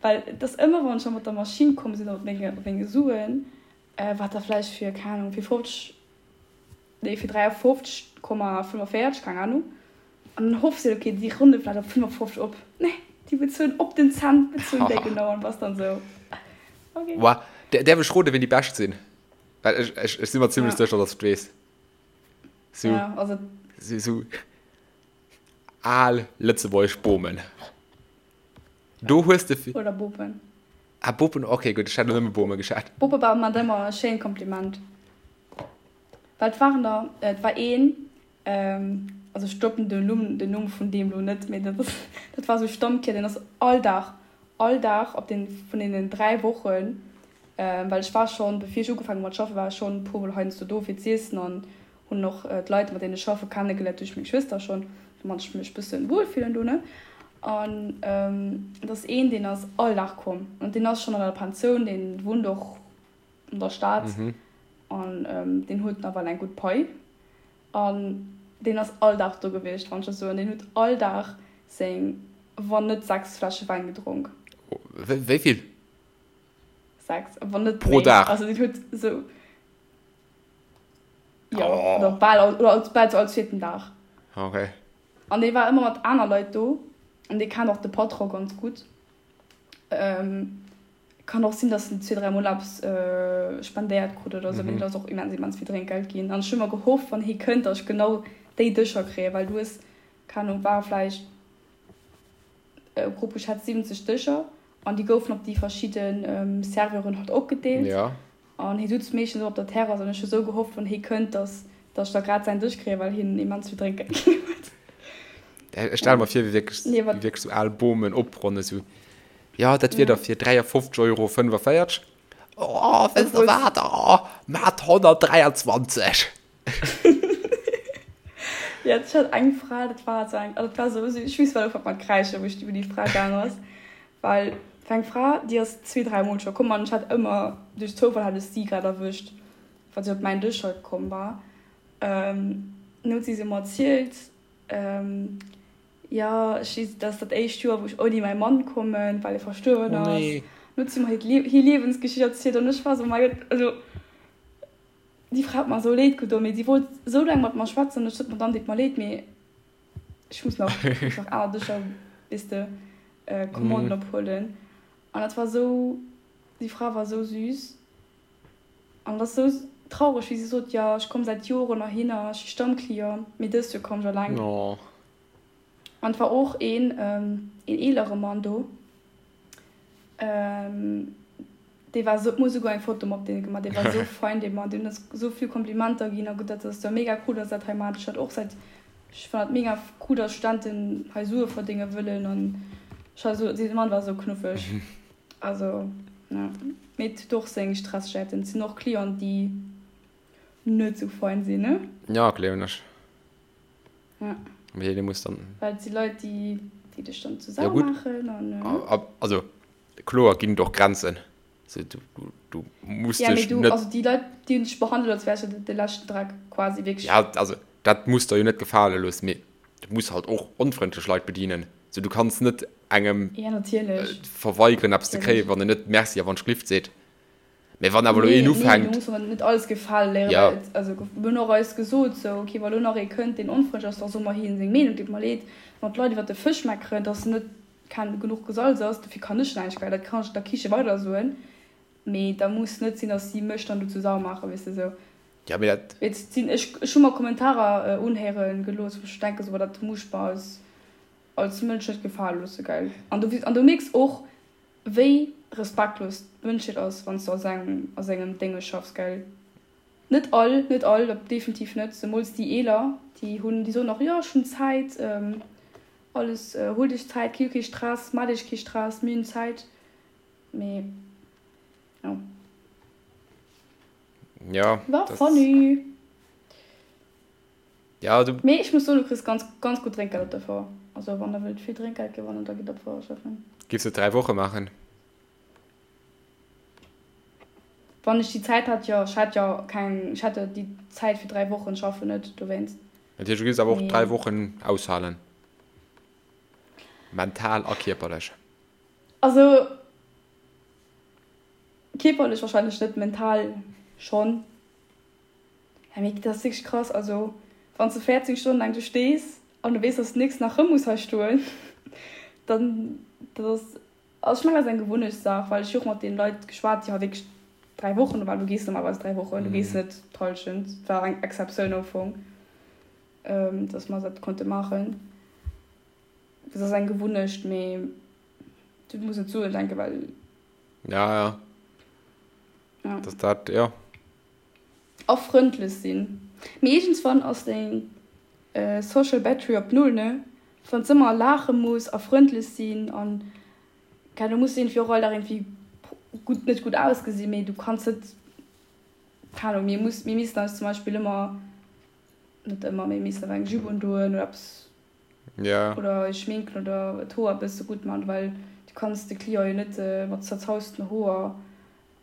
well et ass ëmmer, wann ech da mat der Maschinn komm sinn oder mat menge, mat menge Suen, wat da vläicht fir, keng Ahnung, fir 50, nee, fir 53,45, keng Ahnung, an dann hoffs de, okay, déi ronne vläicht op 55 op. Nee, déi bezuelen op den Cent, bezuelen déi genau an bass dann esou, okay. Wa, däerf ech roden, wien déi bescht sinn? Well ech, ech, ech si mer zimlech Ja. sécher, dass ech et weess. Sou, Ja, also. sou, sou. Al lëtzebuergesch Bomen. Do hues de. Oder Bopen. Ah, Bopen, ok, gutt, ech hat elo nëmme Bome geschat. Bope war mat ëmmer e schéint Kompliment. Well et waren der, et war een, also ech droppen den Numm, den Numm vun deem elo net, mee dat ass, dat war esou e Stammkier, deen ass all Dag, all Dag op den, vun deenen 3 Wochen, well ech war schonn, bevir ech ugefaangen hu mat schaffen, war ech schonn e puermol heiansdo do fir z'iessen an Hunn och d'Leit mat deenen ech schaffe kennegeléiert duerch meng Schwëster schonn, domat ech mech bëssen wuel fillen do ne. An et ass een deen ass all Dag komm an deen ass schonn an der Pensioun, deen wunnt och an der Stad an deen huet nawell eng gutt Pai an deen ass all Dag do gewiescht wann ech dat soen. Deen huet all Dag seng wann net 6 Fläsche Wäin gedronk. Wéi vill? 6, wann net Pro méi. Dag? Also deen huet esou. Jo, oh. oder bal, oder als, bal all zweeten Dag. Okay. An dee war ëmmer mat aner Leit do. An dee kennt och de Patron ganz gutt. Ähm, kann och sinn, dass en zwee, dräi Mol eppes äh, spendéiert krut oder sou, mee mhm. ass och immens, immens vill Drénkgeld ginn. An ech hu ëmmer gehofft, wann hie kënnt, dass ech genau déi Dëscher kréien, well du hues, keine Ahnung, ware vläicht grob geschätzt 70 Dëscher an déi goufen op déi verschidde Serveuren halt opgedeelt. Ja. An hie sutz meeschtens och op der Terrass an ech hu sou gehofft, wann hie kënnt, dass dass ech da grad säin Dësch kréien, well hien immens vill Drénkgeld ginn huet. Ech stelle mer vir, wéi wierklech, Nee, wéi wat? wierklech sou al Bomen opronnen, sou, Jo, dat wier da Ja. fir 53 Euro 45. Oh, wësst der Obwuel. wat, oh, mat 123. Ja, ech hat eng Fra, dat war sou eng, also dat war sou, ech weess wat ufänkt mat kräischen, wou ech iwwer déi Fra gaang ass, well et war eng Fra, déi ass zwee, dräi Mol scho komm an ech hat ëmmer, duerch Zoufall hat ech si grad erwëscht, wa si op mäin Dësch halt komm war. Dann huet si sou mer erzielt. Jo, ech si, dat ass dat éischt Joer, wou ech ouni mäi Mann kommen, well e verstuerwen Oh ass. nee. An huet si mer hiert Lie hir Liewensgeschicht erzielt an ech war esou, Mäi Gott, also déi Fra huet mer esou leed gedoen, mee si wollt esou laang mat mer schwätzen an ech sot, Madame, deet mer leed, mee ech muss nach, ech muss nach aner Dëscher, weess de, Commanden ophuelen. An dat war esou, déi Fra war esou süß. An et ass esou traureg, wéi si sot, jo, ech komm säit Joren heihinner, ech si Stammclient, mee dëst Joer komm ech eleng. An et war och een, een eelere Mann do, dee war esou, mir hu souguer eng Foto mat deem gemaach, dee war esou fein, dee Mann, deen huet eis esou vill Komplimenter ginn a gutt, dat ass jo mega cool, dass dat hei maacht. Ech hat och säit, ech fannen dat mega cool, dass Studenten hei Sue verdénge wëllen an ech war esou, dee Mann war esou knuffeg. Also jo, mee et huet och seng Stressjäiten. Et sinn och Clienten, déi net sou fein sinn, ne? Ja, gleewen ech. Ja. Mee dee muss dann. Well et si Leit, déi, déi dech dann zu Ja Sau gutt, maachen an. also kloer ginn et och Grenzen. Also du, du, du muss Ja, mee dech du, net. also déi Leit, déi hunn dech behandelt, als wäers de de leschten Dreck, quasi, wierklech. Ja, also dat muss der jo net gefale loossen, mee du muss halt och onfrëndlech Leit bedienen. So, du kanns net engem Ja, natierlech. verweigeren eppes ze kréien, Natierlech. wann en net Merci a wann ech glift seet. Mee wann awer elo Nee, een nee, du ufänkt. muss och net alles gefale léieren, Ja. well et, also mir hunn och eis gesot, sou, okay, wa lo nach ee kënnt, deen onfrëndlech ass, da soe mer hien seng Meenung, deet mer leed, wann d'Leit iwwer de Fësch meckeren, dass net ken genuch gesalz ass, dofir kann ech näischt, well dat kann ech der Kiche weider soen, mee da muss net sinn, dass si mech dann dozou sau maachen, weess de, sou. Ja, mee dat. Et sinn, ech, ech hu mer Kommentarer unhéiere gelooss, wou ech denke sou, boah, dat muss ech mer als, als Mënsch net gefale loosse, gell. An du, an du mierks och, wéi respektlos d'Mënschheet ass, wann s du a sengem, a sengem Dénge schaffs, gell. Net all, net all, dat definitiv net, zemools déi Eeler, déi hunn, déi soen och, jo, ech hunn Zäit, alles, huelt iech Zäit, kee, kee Stress, maacht iech kee Stress, mir hunn Zäit, mee jo. Ja, War das funny. Ja, du. Mee ech muss soen, du kriss ganz, ganz gutt Drénkgeld op der Fouer. Also wann der wëllt vill Drénkgeld gewannen, da gitt op d'Fouer schaffen. Giffs de 3 Woche maachen? Wann ech déi Zäit hätt, jo. Ech hätt jo keng, ech hätt jo déi Zäit fir 3 Wochen schaffen net dowéinst. Dat heescht, du giffs awer och 3 Mee. Wochen aushalen? Mental a kierperlech? Also. Kierperlech wahrscheinlech net, mental schonn. Ja mee dat ass wierklech krass, also wann s de 14 Stonnen laang do stees an du weess dass du nächsten Dag rëm muss hei stoen, dann dat ass, also ech mengen dat ass eng Gewunnechtssaach, well ech hu och mat deenen Leit geschwat déi hei wierklech 3 Wochen do waren, du gees normalerweis 3 Wochen, du gees net d'Hallschent, et war eng Exceptioun am Fong, dass mer dat konnte maachen. Dat ass eng Gewunnecht, mee du muss net Suen denken, well. Ja, ja. Ja. Dass dat, ja. A frëndlech sinn. Mee iergendswann ass deng Social Battery op Null, ne? Wann s ëmmer laache muss a frëndlech sinn an, keine Ahnung, du muss iergendwéi och all Dag iergendwéi gutt, net gutt ausgesinn, mee du kanns net, keine Ahnung, mir muss, mir missten eis zum Beispill ëmmer, net ëmmer, mee mir missten awer eng Jupe undoen oder eppes Ja. Oder eis schminken oder d'Hoer e bësse gutt man, well du kanns de Client jo net mat zerzausten Hoer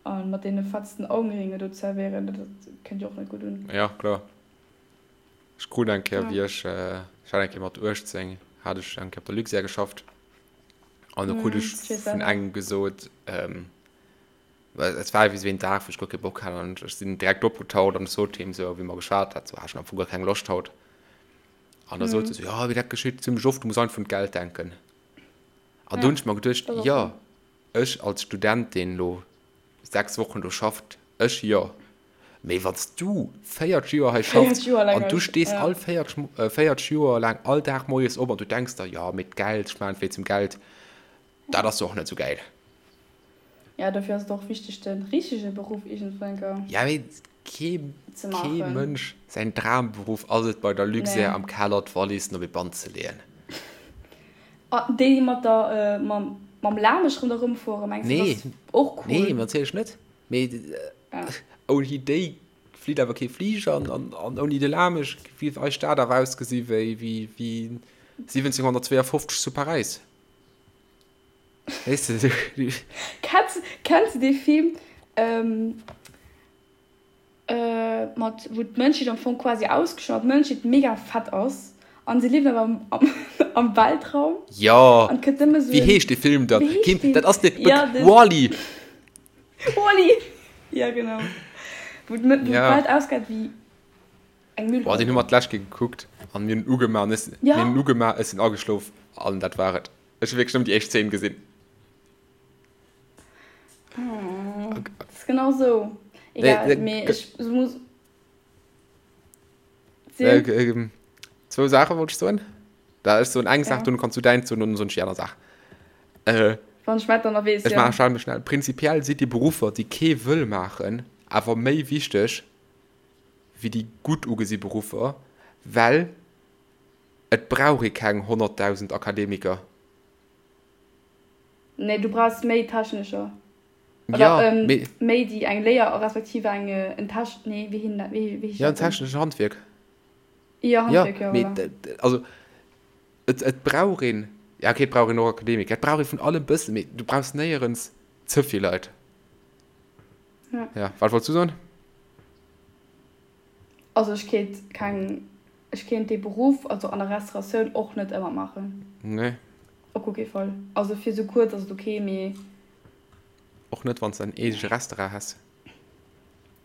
a mat deene fetzten Augenringe do zerwéieren, dat kënnt jo och net gutt un. Ja, kloer. Ech krut eng Kéier, Ja. wéi ech, ech hat eng Kéier mat 18, hat ech eng Kéier op der Luxair geschafft an do krut Mhm, ech ech weess vun selwer. engem gesot, well et war ewéi sou een Dag, wou ech guer kee Bock hat an ech sinn direkt opgetaucht an ech sot him sou, wéi mer geschwat hat, sou, ah, ech hunn am Fong guer keng Loscht haut. An da sot se sou, jo, mee dat geschitt zimmlech oft, du muss einfach un d'Geld denken. An do hunn ech mer geduecht, jo, ech als Student, deen elo 6 Wochen do schafft, ech jo, mee wann s du 40 Joer hei schaffs an du stees all 40, 40 Joer laang all Dag moies op an du denks der, jo, mee d'Geld, ech maachen et wéinst dem Geld, dat ass jo och net sou gäil. Ja, dofir ass et och wichteg, de richtege Beruff iergendwou eng Kéier Ja, mee kee, ze kee maachen. Mënsch säin Dramberuff ass et, bei der Luxair Nee. am Keller d'Wallissen op ee Band ze leeën. Ah, déi mat der, mam, mam Lamesch ronderëm fueren, mengs de, dat Nee, ass och nee, cool? natierlech net. Mee Ja. ouni déi flitt awer kee Fliger an, an, an ouni de Lamesch géif eis Stad awer ausgesi wéi, wéi, wéi 1752 zu Paräis. Weess de, du. Kenns, kenns de dee Film, ähm, äh, mat, wou d'Mënschheet am Fong quasi ausgeschloen, d'Mënschheet mega fett ass an se liewen awer am, am. Am Weltraum. Jo. An et kënnt nëmme sou Wéi en. heescht dee Film dann? Wéi heescht Kim, deen? dat ass de Ja, den. Wall-E. Wall-E! Ja, genau. Wou d'Mëtt, wou Ja. d'Welt ausgeet wéi eng Boah, deen hu Müllhalde. mer d'lescht Kéier gekuckt an mir hunn en ugemaach an ech, mir Ja. hunn en ugemaach, ech sinn ageschlof an dat war et. Ech hu wierklech nëmmen déi éischt Zeen gesinn. Oh, dat ass genau sou. Nee, Egal, nee, mee ge- ech muss. Äh, Sinn. ähm, zwou Saache wollt ech soen. Da ech soen eng Saach, Ja. dunn kanns du däin soen und dann soen ech déi aner Saach. Äh, Wann ech mäin dann nach weess, ech ja. maache schnell, mech schnell. Prinzipiell si déi Beruffer, déi kee wëll maachen, awer méi wichteg wéi déi gutt ugesi Beruffer, well et brauch ee keng 100.000 Akademiker. Nee, du brauchs méi Technescher. Oder Ja, ähm, mee. méi déi eng Léier respektiv eng en Tech, nee, wéi hin dat, wéi wéi heescht Ja, en dat denn? techneschen Handwierk. Jo, Ja, Handwierk, jo, mee voilà. also et, et brauch een, ja okay, et brauch een och Akademiker, et brauch ee vun allem bëssen, mee du brauchs néierens ze vill Leit. Ja. Ja, wat wollts du soen? Also ech kéint keng, ech kéint dee Beruff, also an der Restauratioun och net ëmmer maachen. Nee. Op guer kee Fall. Also fir sou kuerz ass et ok, mee. Och net wann s de en eegege Restaurant häss.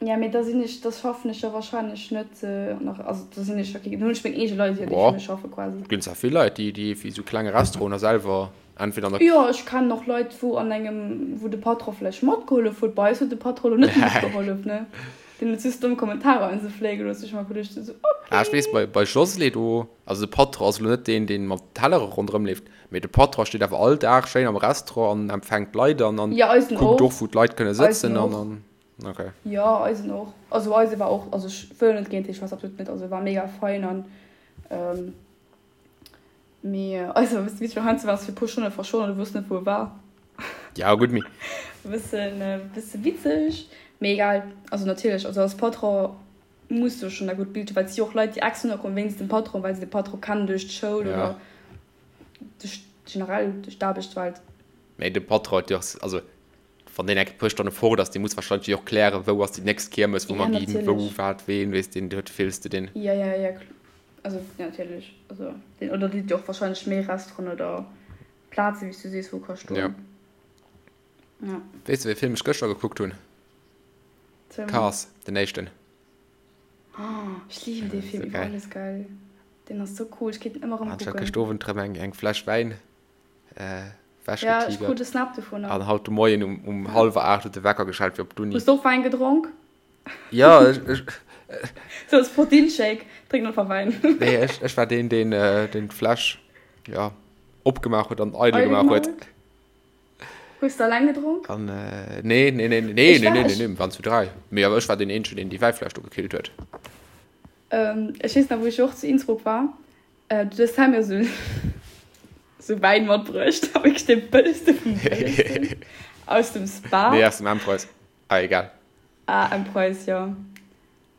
Ja, mee da sinn ech, da schaffen ech jo wahrscheinlech net an der, also da sinn ech jo kee, dann hunn ech meng eege Leit jo, déi Boah, fir mech schaffe quasi. et ginn zwar vill Leit, déi, déi fir sou klenge Restauranten selwer entweder an der. Jo, ech kennen och Leit, wou an engem, wou de Patron vläicht matgehollef huet. Bei eis huet de Patron elo net matgehollef, ne? Deen huet just domm Kommentarer an se fléie gelooss. Ech hu mer geduecht esou, Ah, ech weess, okay. bei, bei Josle do, also de Patron ass elo net deen, deen mat Tellere ronderëm leeft, mee de Patron steet awer all Dag schéin am Restaurant an empfänkt d'Leit an, an Ja, eisen kuckt och. och, wou d'Leit kënne Eisen sëtzen an, och. an, okay. Jo, eisen och. Also eise war och, also ech wëll net géint hie schwätzen, absolut net. Also e war mega fein an, Mee eise war e bëssen witzeg, well heiansdo war se fir e puer Stonne verschwonnen an du wousst net wou e war. Ja gutt, mee. E bëssen, e bësse witzeg, mee egal. Also natierlech, also als Patron muss du schonn dat gutt Bild hunn, well et si jo och Leit déi extra nokomm wéinst dem Patron, well se de Patron kennen duerch d'Schoul Ja. oder duerch generell duerch d'Aarbechtswelt. Mee de Patron huet jo och, also wann deen eng puer Stonne fort ass, dee muss wahrscheinlech jo och klären, wou ass déi nächst Kiermes, wou Ja, mer ginn, wou, natierlech. wat, ween, weess deen, huet fills de deen. Ja, ja, ja, Also ja, natierlech. Also den, oder déi och wahrscheinlech méi Restauranten oder Plaze wéi s du sees wou ka stoen. Ja. Ja. Weess de wéi Film ech gëschter gekuckt hunn? Zähl mol. Cars, den éischten. Oh, ech liwen dee Ja, Film sou iwwer geil. alles, geil. Deen ass sou cool, ech kéint en ëmmer erëm An ech hat kucken. gëscht Owend rëm eng, eng Fläsch Wäin äh, Ja, ech krut wechgetigert. e Snap dovunner. An haut de Moien um, um Ja. hallwer 8 huet de Wecker geschellt fir op d'Uni. Hues de och Wäin gedronk? Ja, ech, ech, Sou als Proteinshake, drénken einfach Wäin. nee, ech, ech war deen, deen, äh, deen d'Fläsch, ja, opgemaach huet an eidel Eidel gemaach gemaach huet. huet. Hues de alleng gedronk? An, äh, nee, nee, nee, nee, Ech nee, war, nee, nee, ech, nee, mir waren zu 3. Mee awer ech war deen eenzegen, deen déi Wäifläsch do gekillt huet. ähm, ech weess nach, wou ech och zu Innsbruck war, äh, du hues mir sou, sou Wäin matbruecht, a wierklech dee bëllegste vum bëllegsten, aus dem Nee, Spar. aus dem M-Preis. Ah, egal. Ah, M-Preis, jo.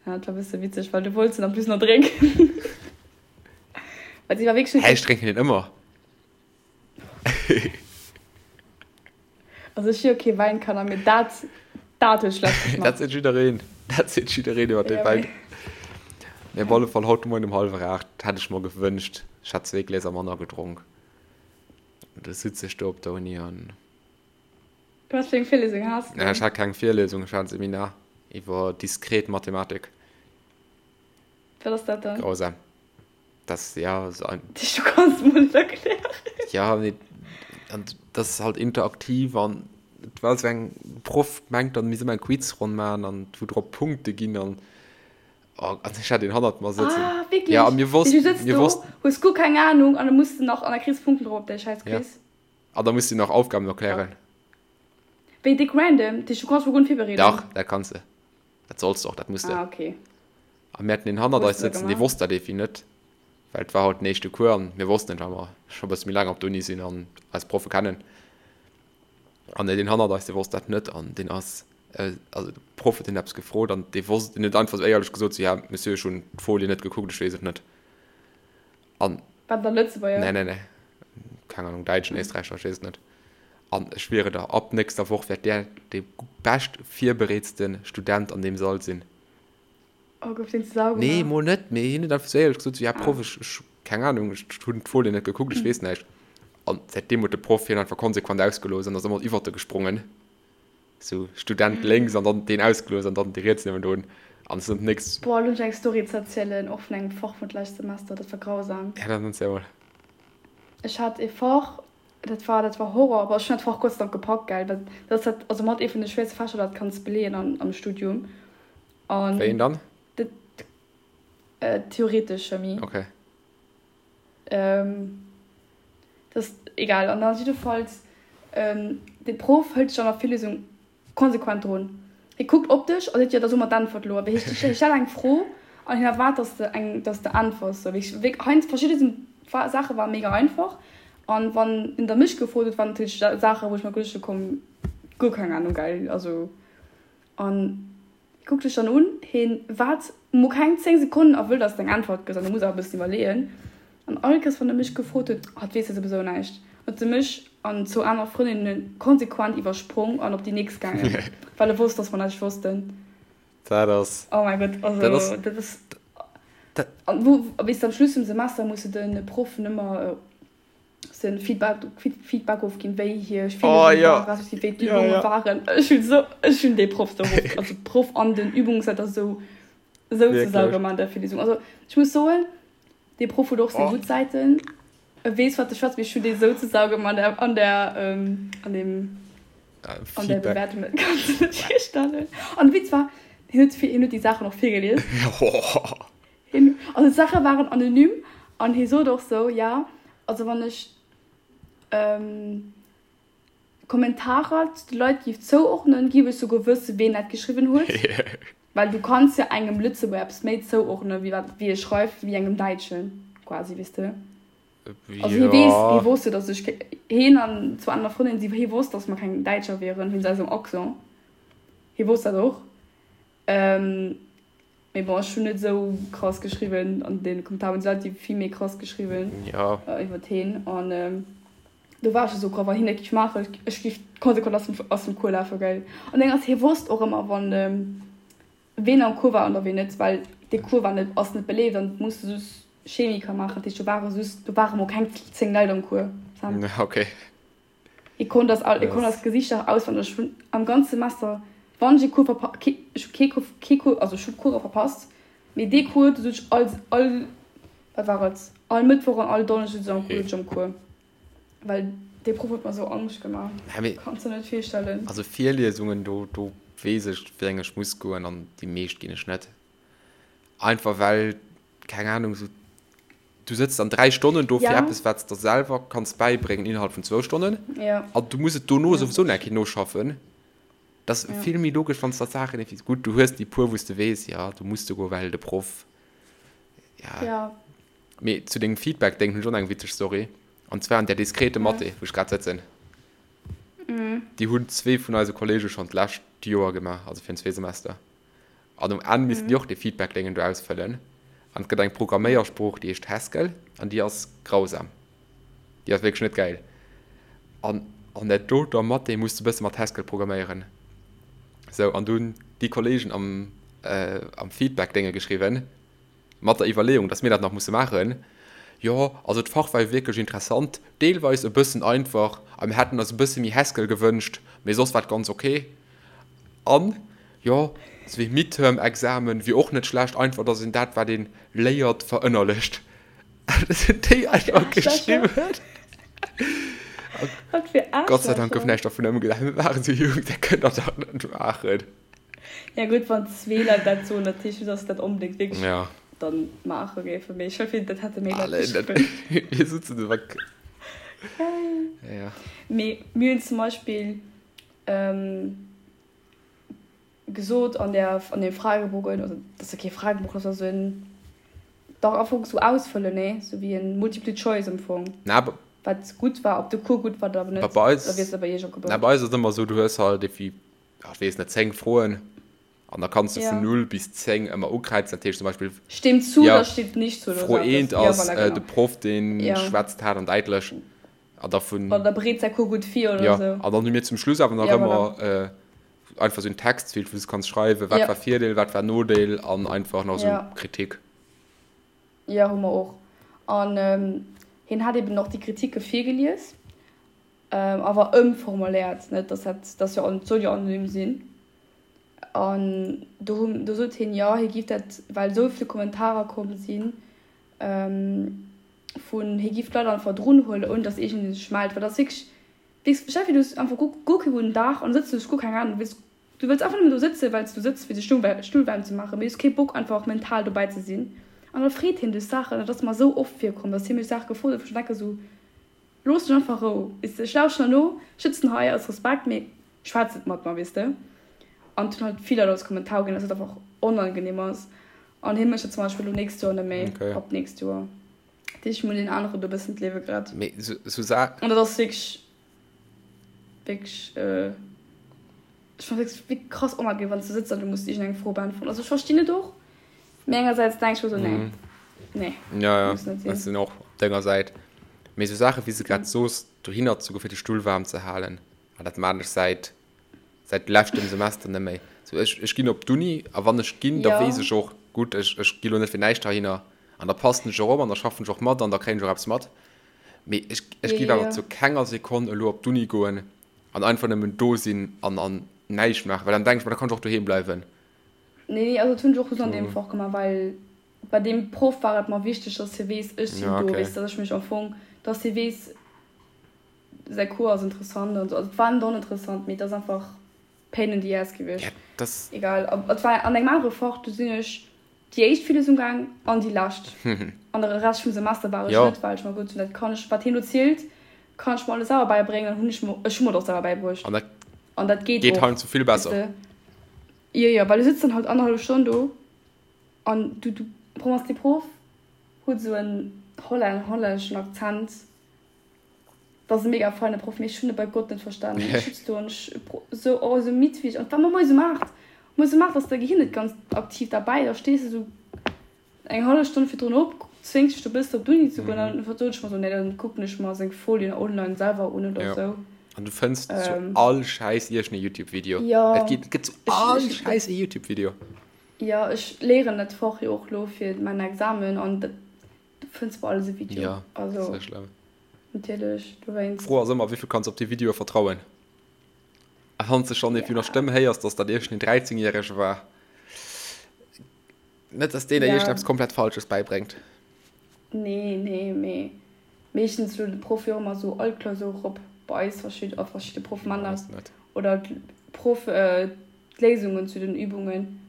Ja, dat war bësse witzeg, well du wollts en en plus nach drénken. Well si war wierklech net Hä, ech drénken deen ëmmer. Also ech si jo kee Wäinkanner, mee dat, dat huet schlecht Dat geschmaacht. seet jiddereen. Dat seet jiddereen iwwer dee Ja, Wäin. mee. Mee op alle Fall, haut de Moien um hallwer 8 hätt ech mer gewënscht, ech hätt zwee Gläser manner gedronk. Du sitz ech do op der Uni an. Wat fir eng Virlesung has de Ech dann? hat keng Virlesung, ech hat en Seminar iwwer diskret Mathematik. Wat ass dat dann? Grausam. Das, ja, so ein. Du kanns mol net erklären. Ja, nee, an das ist halt interaktiv an et war so eng Proff mengt dann mir soll eng Quizronn maachen an wou drop Punkte ginn an oh, an ech hat een hannert mer sëtzen. Ah, wierklech? Ja, a mir Du wossten, sëtz mir do, wossten. hues guer keng Ahnung an da muss de nach an da kriss Punkten drop op däi schäiss Ja. Quiz. An da muss de nach Aufgaben Fuck. erklären. Wéi déck random, dat heescht du kanns mol guer net virbereeden? Dach, dat kanns de. Dat solls de och, dat muss de. Ah, okay. A mir haten een hannert Hues eis de da sëtzen, dee gemaach? wosst dat evi net, well et war haut den éischte Cours an mir wossten et, well mer scho e bësse méi laang op der Uni sinn an eis Proffe kennen. An deen hannert eis, dee wosst dat net an deen ass, also de Proff huet hien eppes gefrot an dee wosst, deen huet einfach esou éierlech gesot, sou, ja, Monsieur, ech hunn d'Folie net gekuckt, ech weess et net. An. War dat e Lëtzebuerger? Nee, nee, nee, keng Ahnung, Däitschen, Éisträicher, ech weess et net. An ech schwiere der, ab nächster Woch wäert där dee bescht virbereetste Student an deem Sall sinn. Oh, gouf deen zu Sau Nee, gemaach? mol net, mee hien huet einfach sou éierlech gesot, sou, ja Ah. Proff, ech, ech. Keng Ahnung, ech hunn d'Folien net gekuckt, ech weess näischt. An säitdeem huet de Proff hien einfach konsequent ausgelooss an ass ëmmer iwwert e gesprongen. Sou Student lénks an dann deen ausgelooss an dann dee riets niewendrun. An es ass nächst. Boah, elo hunn ech eng Story ze erzielen, och vun engem Fach vun d'lescht Semester, dat war grausam. Ja, dann erziel mol. Ech hat ee Fach, dat war, dat war Horror, aber ech hunn dat Fach Gott sei Dank gepackt, gell, well dat ass dat, also mat ee vun de schwéierste Fächer, dat kanns beleeën an, am Studium. An. Wéi een dann? Dat, Theoretesch Chemie. Okay. Ähm, das ist egal. An dann jiddefalls, ähm, de Prof hëlt sech an der Virlesung konsequent drun. Hie kuckt op dech a seet, jo, da so mer d'Äntwert elo. Awer hie hie stellt eng Fro an hien erwaart, dass de eng, dass de äntwers. Sou, wéi wéi heiansdo verschidde sinn Saache ware mega einfach an wann en da mech gefrot huet, waren natierlech Saache wou ech mer geduecht hu komm, guer keng Ahnung, gell, also an. Hie kuckt dech dann un, hien waart mol keng 10 Sekonnen a wëll dass de eng Äntwert gëss an du muss awer e bëssen iwwerleeën. An all Kéiers wann e mech gefrot huet, ah et weess jo souwisou näischt, huet e mech an zwou aner Frëndinne konsequent iwwersprong an op déi nächst gaangen, well e wosst dass mer näischt wossten. Dat ass. Oh mäi Gott, also dat ass. Dat ass. An wou, weess de, am Schluss vum Semester musse de Proffen ëmmer. sen Feedback, Feedback ofginn, wéi hir oh, Virlesung ja. war, respektiv wéi d'Übunge ja, ja. waren. Ech hunn so, ech hunn dee Proff so rof, also Proff an den Übungsleiter so, so ze sau gemaach an der Virlesung. Also ech muss soen, dee Proff huet och seng oh. gutt Säiten. E weess wat e schwätzt, mee ech hunn dee sou ze sau gemaach an der, an der, ähm, an dem, an der Bewertung, dat kanns du net virstellen. An de Witz war, hien huet, hien huet déi Saachen och virgelies. Hien, also d'Saache waren anonym an hie sot och sou, ja, also wann ech Kommentarer zu de Leit géif zouordnen, géif ech souguer wësse ween dat geschriwwen huet, well du kanns jo engem Lëtzebuerger eppes méi zouordnen, wéi wat wéi e schreift, wéi engem Däitschen quasi, weess de. Also hie weess, hie wosst jo, datt ech, hien an zwou aner Frëndinnen, si, hie wosst, datt mer keng Däitscher wieren, wéinst eisem Accent, hie wosst dat och. Mee bon, ech hunn net esou krass geschriwwen an den Kommentaren hunn se vill méi krass geschriwwen ja. iwwert heen an do war ech esou graff, wann hien dat géif maachen, ech géif konsequent aus dem aus dem Cours lafen, gell. An deng ass, hie wosst och ëmmer wann ween am Cours war an der ween net, well dee Cours war net ass net beleeft an et muss de just Chemiker maachen, dat heescht do ware just do ware mol keng 10 Leit am Cours. Ja, okay. Hie konnt eis all, hie konnt eis Gesichter auswenneg. Ech hunn am ganze Semester, wann ech ee Cours verpa-, kee, ech hu kee Cours, kee Cours, also ech hu Course verpasst, mee dee Cours, do sot ech all, all, wat war et, all Mëttwoch an all Donneschde sot ech am Cours, sot ech am Cours. Well dee Proff huet mer esou Angscht gemaach, Ja, mee kanns der net virstellen. also Virliesungen, do, do weess ech, wéi eng ech muss goen an déi meescht ginn ech net. Einfach well, keng Ahnung, esou Du sëtz dann 3 Stonnen do fir Ja. eppes, wat s der selwer kanns bäibréngen innerhalb vun zwou Stonnen. Ja. An du muss et dono Ja, souwisou dat nach eng Kéier noschaffen. Dat ass Ja. vill méi logesch, wann s der d'Saachen effi-, gutt, du hues déi puer, wou s de weess, jo, do muss de goen, well de Proff, ja. Ja. Mee zu dengem Feedback-Déng hunn ech och nach eng witzeg Story. An zwar an där diskrete Ja. Mathé, wou ech grad sëtzen. Mhm. Déi hunn zwee vun eise Kollege schonn d'lescht Joer gemaach, also virun zwee Semester. An um Enn missten déi och dee Feedback-Déngen do ausfëllen. An et gëtt eng Programméiersprooch, déi heescht Haskell, an déi ass grausam. Déi ass wierklech net gäil. An an där doter Mathé muss de bësse mat Haskell programméieren. Sou, an du hunn déi Kolleegen am, am Feedback-Dénge geschriwwen, mat der Iwwerleeung, dass mir dat nach musse maachen, Jo, also d'Fach war jo wierklech interessant, deelweis e bëssen einfach a mir hätten eis e bësse méi Haskell gewënscht, mee soss war et ganz ok. An, jo, sou wéi Midterm-Examen wier och net schlecht, einfach dass een dat, wat ee léiert, verënnerlecht. Dat hunn déi einfach geschriwwen. Wat fir Gott sei Dank gouf Aarschlächer. näischt dervun ëmgesat. Mir waren esou jonk, dat kënnt der dach net maachen. Ja gutt, wann zwee Leit dat soen, dat heescht net, dass se dat onbedéngt wierklech Ja. dann maache géifen. Mee ech hoffe, dat hätte méi Leit Allee, dat, geschriwwen. mir sitzen do weg. Geil. Ja. Mee mir hunn zum Beispill ähm, gesot an der, an deem Fragebogen, also dat ass jo kee Fragebogen, dat ass esou en, dach am Fong sou ausfëllen, nee, sou wéi en Multiple Choice am Fong, Na, bei, wat gutt war, ob de Cours gutt war oder awer bei net, oder eis, wéi ass dat bei iech na, opgebaut? bei eis ass et ëmmer esou, du hues halt evi, ech weess net, 10 Froen an da kanns de vun Ja. 0 bis 10 ëmmer ukräizen. Dat heescht zum Beispill, Stimmt zu ja, oder stimmt nicht zu oder Fro sou eppes. 1 Ja, ass voilà, äh, de genau. Proff, dee Ja. schwätzt haart an däitlech an da vun, Oder bereet säi Cours gutt vir oder ja, sou. an dann hu mir zum Schluss awer nach Ja, voilà. ëmmer äh, einfach sou en Textfeld, wou s du kanns schreiwen, wat Ja. war Virdeel, wat war Nodeel an einfach nach sou Ja. Kritik. Jo, hu mer och. An hien hat eben och déi Kritike virgelies, awer ëmformuléiert, net dass dat, dat jo, et soll jo anonym sinn. An do hu, do sot hien, jo, hie giff dat, well esou vill Kommentarer komm sinn, vun, hie giff d'Leit einfach drun huelen, ouni dass iergendee sech mellt, well dat ass wierklech, weess, stell dir vir, du hues einfach guer, guer kee gudden Dag an da sëtz du, hues guer keng Ahnung, du wëlls, du wëlls einfach nëmmen do sëtzen, well s du sëtz, fir de Stull, Stull waarm ze maachen, mee du hues kee Bock einfach mental dobäi ze sinn. An da freet hien dech Saachen, an dat ass mer esou oft virkomm, dass hie mech Saache gefrot huet, wou ech denke sou, Looss mech einfach Rou, weess de, ech lauschten der no, ech sëtzen hei aus Respekt, mee schwätz net mat mer, weess de. An et hunn halt vill Leit als Kommentar uginn, dass et einfach onangenehm ass. An hie mécht dat zum Beispill elo nächst Joer net méi, Okay. ab nächst Joer. Dat heescht, mir hunn deen aneren do e bëssen d'Liewe gerett. Mee sou, sou Sa. An dat ass wierklech, wierklech, ech fannen et wierklech krass onangenehm, wann s du sëtz an du muss iergendeng Fro beäntweren. Also ech verstinn et och, mee engersäits denk ech mer sou, nee, nee, Ja, ja, muss net sinn. ech sinn och op denger Säit. Mee sou Saache wéi s de grad soos, dohinner ze goen, fir de Stull waarm ze halen, ah, dat maan ech säit säit leschtem Semester net méi. Sou, ech, ech ginn op d'Uni a wann ech ginn, da Ja. weess ech och, gutt, ech, ech gi lo net fir näischt heihinner an da passen ech och op an da schaffen ech och mat an da kréien ech och eppes mat. Mee ech, ech Ja, géif ja, awer ja. zu kenger Sekonn elo op d'Uni goen an einfach nëmmen do sinn an, an näischt maachen, well dann denken ech mer, da kann ech och doheem bleiwen. Nee, nee, also dat hunn ech och just an deem So. Fach gemaach, well bei deem Proff war et mer wichteg, dass hie weess, ech sinn Ja, do, okay. weess, dass ech mech am Fong, dass hie weess, Säi Cours ass interessant an sou. Also et war net oninteressant, mee et ass einfach pain in the ass gewiescht. Ja, das. Egal. Et war an engem anere Fach, do sinn ech déi éischt Virlesung gaang an déi lescht. An de Rescht vum Semester war ech Jo. net, well ech mer gesot hunn, dat kann ech, wat hien do zielt, kann ech mer alles selwer bäibréngen. An hunn ech mer, ech hu mer et och selwer bäibruecht. An dat An dat geet geet och, heiansdo vill weess besser. de. Jo, jo, well du sëtz dann halt annerhallef Stonn do an du, du, Proff ass, dee Proff huet esou en hollän, hollänneschen Akzent. Dat ass e mega feine Proff, mee ech hunn e bei Gott net verstanen. Ech sutz do an ech sou, oh, esou midd wéi ech. An et war mer moies um 8. Moies um 8 ass däi Gehir net ganz aktiv derbäi. Da stees de sou eng hallef Stonn virdrun op, zwéngs dech do bëssen op d'Uni ze goen. An dann sot ech mer sou, nee, dann kucken ech mer seng Folien online selwer un oder Jo. sou. An du fënns zu all Schäiss iergend e Youtube-Video. Jo. Et gëtt, et gëtt zu all Schäiss e Youtube-Video. Jo, ech léieren dat Fach jo och lo fir mäin Examen an dat Du fënns bei alles e Video. Ja, also, sehr schlamm. Natierlech, dowéinst. D'Fro ass ëmmer, wéi vill kanns op déi Videoe vertrauen? A wann s de schonn vun der Stëmm héiers, dass dat iergendeen 13 Järege war, net dass deen der Ja. iergendeppes komplett Falsches bäibréngt. Nee, nee, mee meeschtens lueden de Proff jo ëmmer sou all Klausur erop bei eis, verschidde, a verschidde Proff man Bei eis dat. net. Oder d'Proff d'Léisungen zu den Übungen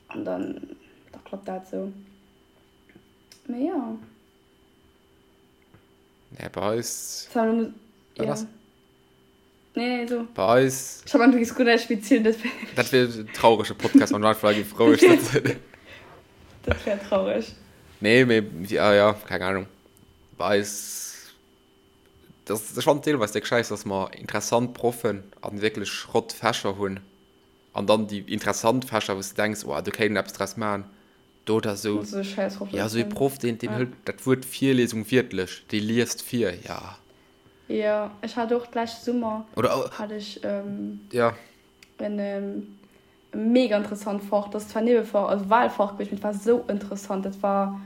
an dann da klappt dat sou. Mee jo. Nee, bei eis. Wat ass? Nee, nee, so. Bei eis. Ech hat du giss guer näischt méi zielen, dat wär. Dat wier en traurege Podcast, wann du einfach hei géif roueg sëtzen. Dat wär traureg. Nee, mee, ja, ja, keng Ahnung. Bei eis, dat ass, ech fannen deelweis déck schäiss, dass mer interessant Proffen an wierklech Schrott-Fächer hunn. An dann déi interessant Fächer, wou s de denks, oh, do kéint een eppes draus maachen. Do da sou, ja, sou ee Proff, deen, deen hëlt dat Wuert Virlesung wiertlech, dee liest vir, ja. Jo, ech hat och d'lescht Summer Oder, hat ech ja. en mega interessant Fach, dat ass zwar Niewefach, also Wahlfach gewiescht, mee et war sou interessant, dat war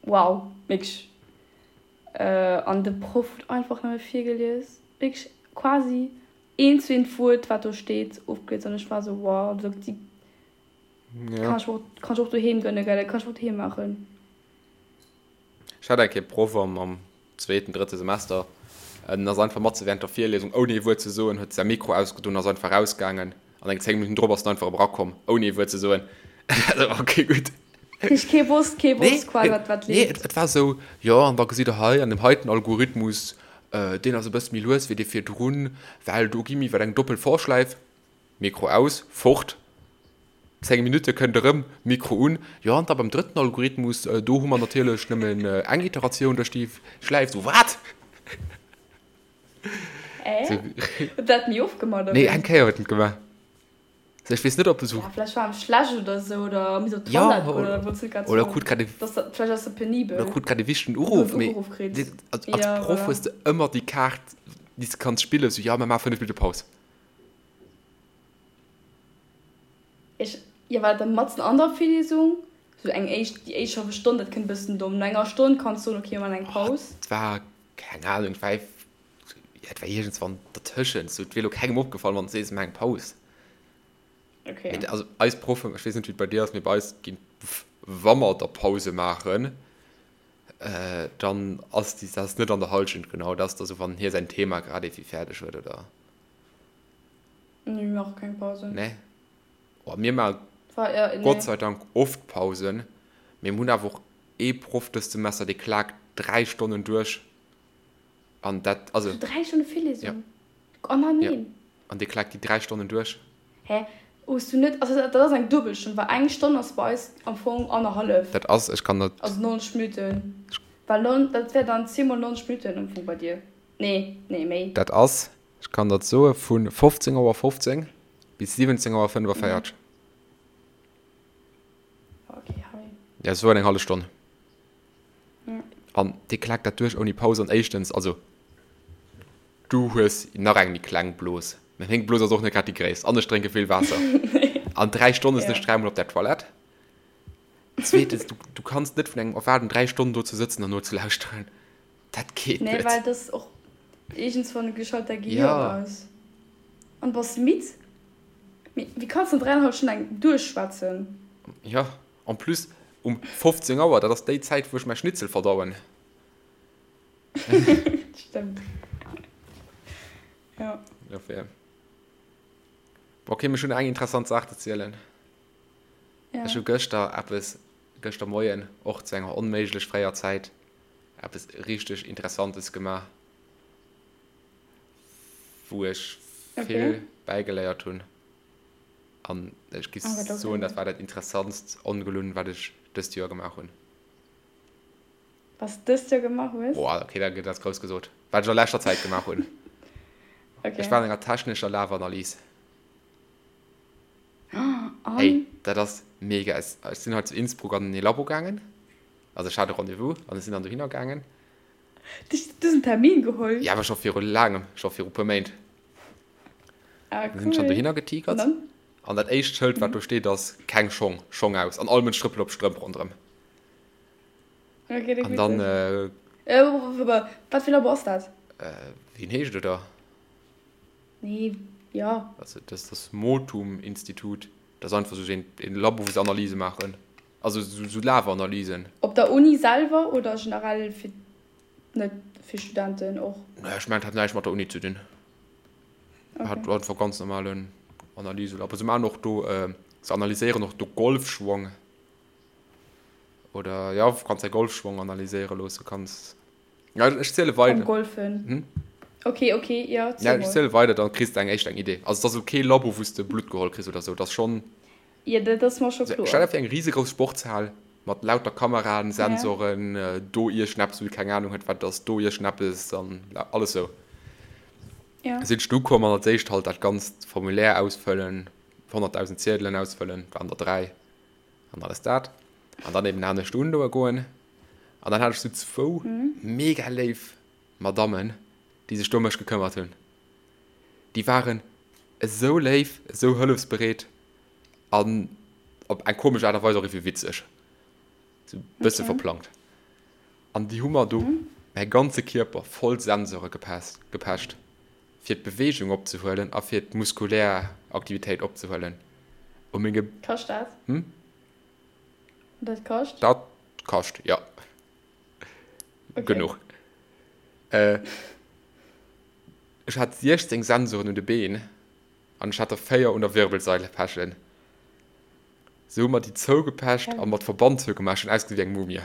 wow, wierklech. An de Proff huet einfach nëmme virgelies, wierklech quasi eent zu eent d'Wuert, wat do steet, ofgelies an ech war sou wow, also déi Ja. Kann ech och, kann ech och doheem gënne, gell? Dat kann ech och doheem maachen. Ech hat eng Kéier Proff am, am zweeten, drëtte Semester. En ass einfach matze während der Virliesung, ouni ee Wuert ze soen, huet säi Mikro ausgedoen, ass einfach rausgaangen. An eng 10 Minutten drop ass en einfach erëm erakomm, ouni ee Wuert ze soen. Ok, gutt. Heescht, kee wosst, kee Nee, wosst quasi, wat, wat nee, leeft. et, et war esou, jo, an da gesitt der hei an deem heiten Algorithmus, deen ass e bësse méi lues wéi dee virdrun, well do gi mir iwwer eng doppel For-Schläif. Mikro aus, fort. 10 Minutte kënnt erëm, Mikro un. Jo, an da beim drëtten Algorithmus, do hu mer natierlech nëmmen eng Iteratioun duerch déi Schläif. So, wat? Äh? Huet dat ni ofgemaach, oder Nee, wéi? eng Kéier huet en et gemaach. So, ech weess net, ob e sou. Ja, vläicht war em schlecht oder sou, oder misst op Ja, d'Toilette goen, oder wollt net grad oder soen. krut grad e. Dass dat, vläicht ass e Oder penibel. krut grad e wichtegen Huet Uruff. en Mee Uruff kritt. als, als Ja, Proff voilà. hues de ëmmer déi Kaart, déi s de kanns spillen, sou, jo, mir maache 5 Minutte Paus. Ech, jo, war dat dann matzen an der Virlesung? Sou eng éischt, déi éischt hallef Stonn, dat kënnt e bëssen domm. No enger Stonn kanns soen, okay, mir maachen eng Oh, Paus. et war, keng Ahnung, et war, ja, et war iergendswann dertëschent. Sou, et wier elo kengem opgefall, wann s de sees, mir maachen eng Paus. Okay. Mee also eis Proffen, ech weess net, wéi et bei dir ass, mee bei eis ginn, wa mer da Pause maachen, dann ass déi, dat ass net an der Hallschent genau, dat ass da sou, wann hie säin Thema grad ewéi fäerdeg huet, oder? Nee, mir maache keng Pausen. Nee? Oh, mir maache Gott sei Dank oft Pausen, mee mir hunn awer och ee Proff dëst Semester, dee klaakt 3 Stonnen duerch an dat, also. So 3 Stonne Virlesung? Ja. Oh na Ja, neen. an dee klaakt déi 3 Stonnen duerch. Hä? Hues du net, also dat ass eng Duebelstonn, well eng Stonn ass bei eis am Fong annerhallef. Dat ass, ech kann dat. Also 90 Minutten, well dat wär dann 10 mol 90 Minutten am Fong bei dir. Nee, nee, méi. Dat ass, ech kann dat soe vu 15 Auer 15 bis 17 Auer 45. Okay, hei. Ja, sou eng hallef Stonn. An dee klaakt dat duerch ouni Paus. An éischtens, also du hues nach eng méi kleng Blos, mä meng Blos ass och net grad déi gréisst an ech drénke vill Waasser. An 3 Stonne sinn ech dräimol op der Toilette. Zweetens, du, du kanns net vun engem erwaarden, 3 Stonnen do ze sëtzen an nozelauschteren. Dat geet Nee, net. well dass och iergendswann geschalt däi Gehir Ja. aus. An bass midd. Mee wéi kanns de an dräienhallef Stonn eng duerchschwätzen? Ja, en plus um 15 Auer, dat ass déi Zäit, wou ech mäi Schnitzel verdauen. Stëmmt. Ja. Dofir. Ok, mee ech hunn eng interessant Saach ze zielen. Ja. Ech hu gëschter eppes, gëschter Moien, och zu enger onméiglech fréier Zäit, eppes richteg Interessantes gemaach, wou ech vill Okay. bäigeléiert hunn. An ech giff Oh, wat soen, okay. dat war dat interessantst Ongelunn, wat ech dëst Joer gemaach hunn. Was du dëst Joer gemaach hues? Boah, okay, dat ass grouss gesot. Wat ech a leschter Zäit gemaach hunn. Ech Okay. war an enger technescher Lafanalyse. An? Ey, dat ass mega. Ech sinn hei zu Innsbruck an ee Labo gaangen. Also ech hat e Rendez-vous an ech sinn dann dohinner gaangen. Du hues en Termin geholl? Jo, awer scho viru laangem, scho viru puer Méint. Ah, Dann sinn ech dann cool. dohinner An getigert dann? an dat éischt Schëld, wat do steet, ass, Keng Schong, Schong aus. An all Mënsch trëppelt op Strëmp ronderëm. Okay, dat An witzeg. dann, äh, Äh, wat fir Labo ass dat? wéi en heescht, oder? Nee, jo. Also dat ass das Motum-Institut. Dat ass einfach sou een Labo, wou se Analyse maachen. Also sou Lafanalysen. Op der Uni selwer oder generell fir net fir Studenten och? Nee, ech mengen, et hat näischt mat der Uni ze dinn. Okay. Hat einfach ganz normalen Analyselabo. Se maachen och do, se analyséieren och do Golfschwong. Oder jo, kanns däi Golfschwong analyséiere loosse, kanns. Ja, ech ziele weider. Am Golfen. Hm? Okay, okay, ja, Ja, ziel ech mol. ziele weider, dann kriss de eng éischt eng Idee. Also, et ass elo kee Labo, wou s de Blutt geholl kriss oder sou. Et ass schonn. Ja, dat ass mer scho Stell kloer. der vir eng risegrouss Sportshal mat lauter Kameraen, Ja. Sensoren, do iergendeppes, wou du keng Anung huet, wat et ass, do iergendeppes an alles sou. Ja. Sinn ech du komm an als éischt halt dat ganzt Formulaire ausfëllen, 100.000 Ziedelen ausfëllen, waren der 3 an alles dat. An dann eben anescht undoe goen. An dann hat ech sou zwou mega léif Madammen, déi sech do ëm mech gekëmmert hunn. Déi waren esou léif, esou hëllefsbereet an op eng komesch Aart a Weis och iergendwéi witzeg. Sou e bësse Okay. verplangt. An déi hu mer do mäi ganze Kierper voll Sensore gepecht, fir d'Beweegung opzehuelen a fir d'muskulär Aktivitéit opzehuelen. U menge. Kascht dat? Hm? Dat kascht? Dat kascht, jo. Okay. Genuch. Äh, ech hat 16 Sensoren un de Been an ech hat der 4 un der Wirbelsail pechen. Se hu mer déi zougepecht a mat Verband zougemaach. Ech hunn ausgesinn wéi eng Mumie.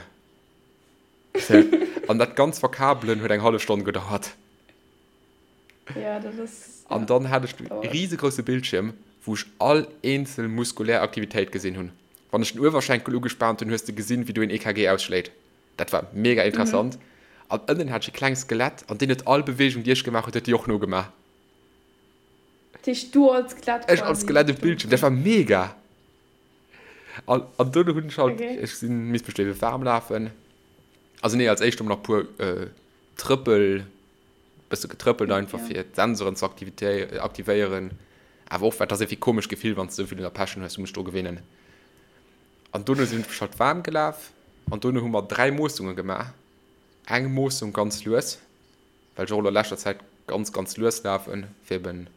An dat ganz verkabelen huet eng hallef Stonn gedauert. Ja, dat ass. An Ja, dann hat ech de dauert. riesegrousse Bildschierm, wou ech all eenzel muskulär Aktivitéit gesinn hunn. Wann ech den Uewerschenkel ugespaant hunn, hues de gesinn, wéi do een EKG ausschléit. Dat war mega interessant. An ënnen hat ech e klengt Skelett, an deen huet all Beweegung, déi ech gemaach huet, huet déi och nogemaach. Dat heescht, du als Skelett Ech als quasi Skelett um Bildschierm, dat war mega! An, an dono hunn ech halt, Okay. ech sinn, misst mech do ebe waarm lafen. Also nee, als éischt hu mer nach puer Trëppel, bësse getrëppelt einfach Ja. fir d'Sensoren ze aktivéieren. Awer och, well et ass iergendwéi komesch Gefill, wann s de esou vill un der Pechen hues, du muss dech dru gewinnen. An dono sinn ech mech halt waarm gelaf an dono hu mer 3 Moossunge gemaach. Eng Moossung ganz lues, well ech och elo a leschter Zäit ganz, ganz lues lafen, fir eben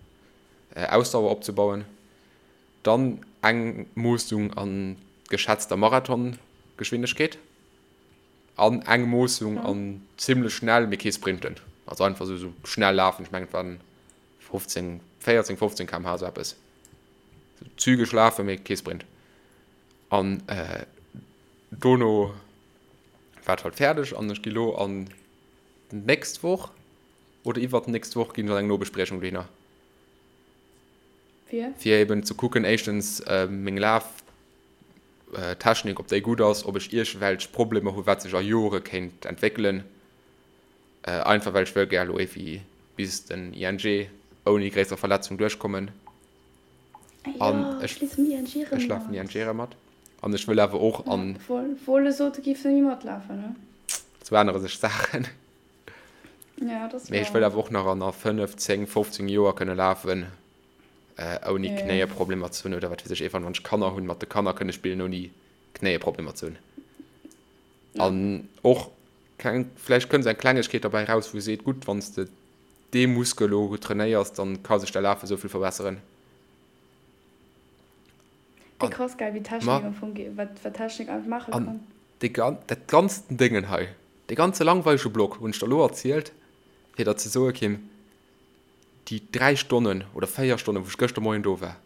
Ausdauer opzebauen. Dann eng Moossung an geschätzter Marathongeschwindegkeet an eng Moossung an zimmlech schnell, mee kee Sprinten. Also einfach esou schnell lafen, ech mengen et waren 15, 14, 15 km/h, esou eppes. Zügeg lafen, mee kee Sprint. An dono war et halt fäerdeg an ech gi lo an d'nächst Woch oder iwwert d'nächst Woch ginn ech an eng Nobespriechung dohinner. Fir? Fir eben ze kucken, éischtens meng Laftechnik, ob déi gutt ass, ob ech iergendwelch Problemer hu wat sech a Jore kéint entwéckelen. Einfach well ech wëll gär elo éiwéi bis den ING ouni gréisser Verletzung duerchkommen. An ech, ech lafen ING erëm mat. An ech wëll awer och an. Wolle sot, du giffs net méi matlafen, ne? Sou ännere sech d'Saachen. Ja, dat ass Mee ech wëll awer och nach an a 5, 10, 15 Joer kënne lafen, ouni Knéieproblemer ze hunn oder wat weess ech, iergendwann, wann ech Kanner hunn, mat de Kanner kënne spillen, ouni Knéieproblemer ze hunn. An och keng, vläicht kënnt esou eng Klengegkeet derbäi raus, wou seet, gutt, wann s de dee Muskel elo trainéiers, dann ka sech däi Lafe sou vill verbesseren. Wéi krass geil, wéi Technik am Fong, wat Technik einfach maache kann. An dee, dat ganzen Déngen hei, dee ganze langweilege Block hunn ech der elo erzielt, fir der ze soe, Kim, déi 3 Stonnen oder 4 Stonnen, wou ech gëschter Moien do war,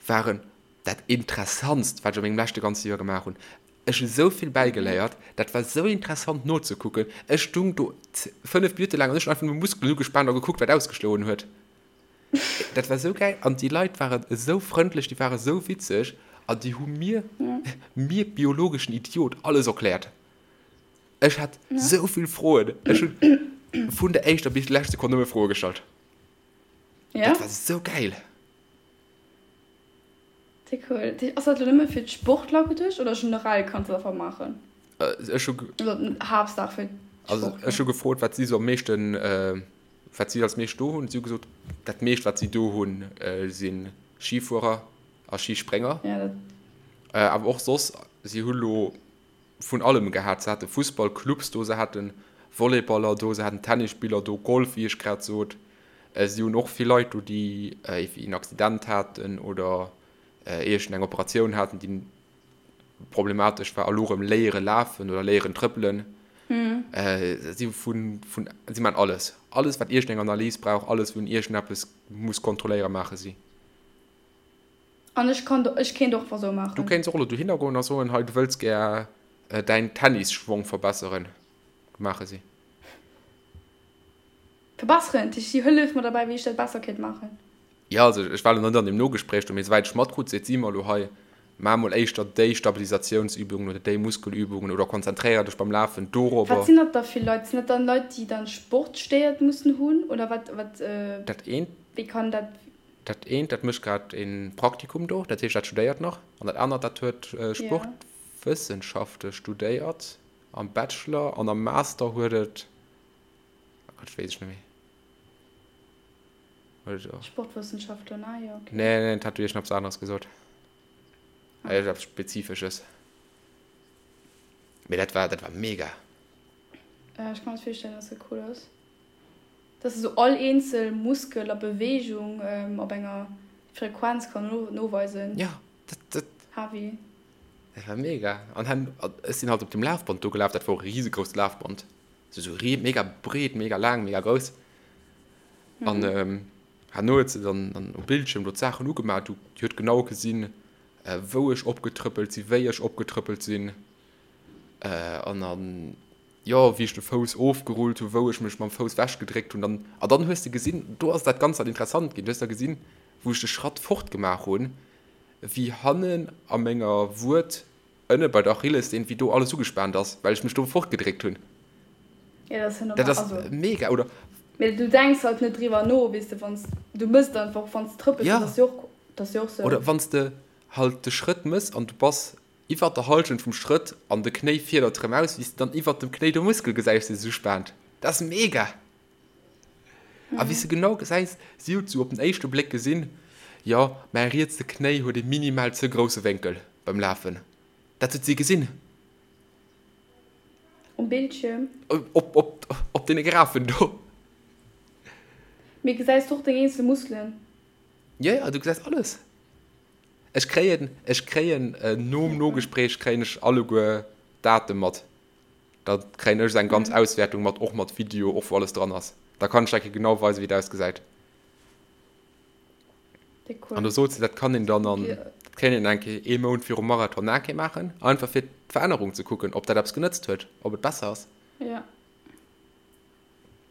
waren dat Interessantst, wat ech a mengem leschte ganze Joer gemaach hunn. Ech hu sou vill bäigeléiert, dat war sou interessant nozekucken. Ech stung do 5 Minutte laang an ech hunn einfach nëmme Muskelen ugespaant a gekuckt, wat ausgeschloen huet. Dat war sou gäil an déi Leit waren esou frëndlech, déi ware sou witzeg an déi hu mir, mir biologeschen Idiot, alles erkläert. Ech hat sou vill Froen. Ech hunn vun der éischter bis déi lescht Sekonn nëmme Froe gestallt. Dat war sou gäil. Sehr cool. Ass dat elo nëmme fir d'Sportler geduecht oder generell kanns du dat einfach maachen? Ech hu Also Haaptsaach fir Also d'Sportler. ech hu gefrot, wat si sou am meeschten, wat si als meescht do hunn. Si hu gesot, dat meescht wat si do hunn, si Schifuerer a Schisprénger. Ja, dat. Awer och soss, si hu lo vun allem gehat. Se hate Fussballclubs do, se hate Volleyballer do, se haten Tennisspiller do, Golf, wéi ech grad sot. Si hunn och vill Leit do, déi en Accident haten oder iergend eng Operatioun haten, déi problematesch war a lo erëm léiere lafen oder léieren trëppelen. Si vun, vun, si maachen alles. Alles, wat iergend eng Analys brauch, alles, wou een iergendeppes muss kontrolléieren, maache si. An ech kann, ech kéint och einfach sou maachen. Du kéints och elo dohinner goen a soen, hei, du wëlls gär däin Tennisschwong verbesseren, maache si. Verbesseren, dat heescht, si hëlleft mer derbäi, wéi ech dat besser kéint maachen. Jo, also ech war elo net an deem Nogespréich do, mee souwäit ech matkrut, seet si mer elo hei, maach mol éischter déi Stabilisatiounsübungen oder déi Muskelübungen oder konzentréier dech beim Lafen dorobber. Wat sinn dat da fir Leit? Sinn dat dann Leit, déi dann Sportstéiert mussen hunn oder wat, wat, Dat eent. wéi kann dat? Dat eent, dat mécht grad e Praktikum do, dat heescht, dat studéiert nach. An dat anert, dat huet Sportwëssenschafte studéiert am Bachelor an am Master huet et, oh Gott, weess ech net méi. Huet et och. Sportwëssenschaftler, ah jo, okay. Nee, nee, dat hat iergendeppes aneres gesot. Ah. Iergendeppes Spezifesches. Mee dat war, dat war mega. Ech ka mer dat virstellen, dass dat cool ass. Dass se sou all eenzel Muskel a Beweegung op enger Frequenz kann noweisen. Jo, dat, dat. Heavy. Dat war mega. An hen, ech sinn halt op dem Lafband do gelaf, dat war och e risegrousst Lafband. Sou, sou ri, mega breet, mega laang, mega grouss. An herno huet se dann, dann um Bildschierm do d'Saachen ugemaach. Du, déi huet genau gesinn, wou ech opgetrëppelt sinn, wéi ech opgetrëppelt sinn. An dann. jo, wéi ech de Fouss ofgerullt hu, wou ech mech mam Fouss wechgedréckt hunn, dann, a dann hues de gesinn, do ass dat Ganzt dann interessant ginn, du hues da gesinn, wou ech de Schratt fort gemaach hunn, wéi hannen a menger Wued, ënne bei der Achillessehn, wéi do alles ugespaant ass, well ech mech do fortgedréckt hunn. Ja, dat ass ja normal, Dat ass also. mega, oder? Mee du denks halt net driwwer no, weess de, wann s, du mëss et einfach, wann s de trëppels, dat Ja. ass jo och, dat ass jo och sou. Oder wann s de halt de Schrëtt mëss an du bass Iwwert der Halschent vum Schrëtt an de Knéi fiedert rem aus, wéi s de dann iwwert dem Knéi de Muskel gesäis, dee sech uspaant. Dat ass mega! A wéi s de genau gesäis, si huet sou op den éischte Bléck gesinn, jo, mäi rietse Knéi huet e minimal ze grousse Wénkel beim Lafen. Dat huet si gesinn. Um Bildschierm? Op, op, op deene Graphen do. Mee gesäis du och deng eenzel Muskelen? Jo, jo, du gesäis alles. Ech kréien, ech kréien nom Nogespréich kréien ech alleguer d'Date mat. Da kréien ech eng ganz Auswäertung mat, och mat Video, och wou alles dran ass. Da kann ech der genau weisen, wéi et ausgesäit. Déck cool. An do sot se, dat kann een dann an, dat kéint een eng Kéier ee Mount virum Marathon nach eng Kéier maachen, einfach fir d'Verännerung ze kucken, ob dat eppes genëtzt huet, ob et besser ass. Ja.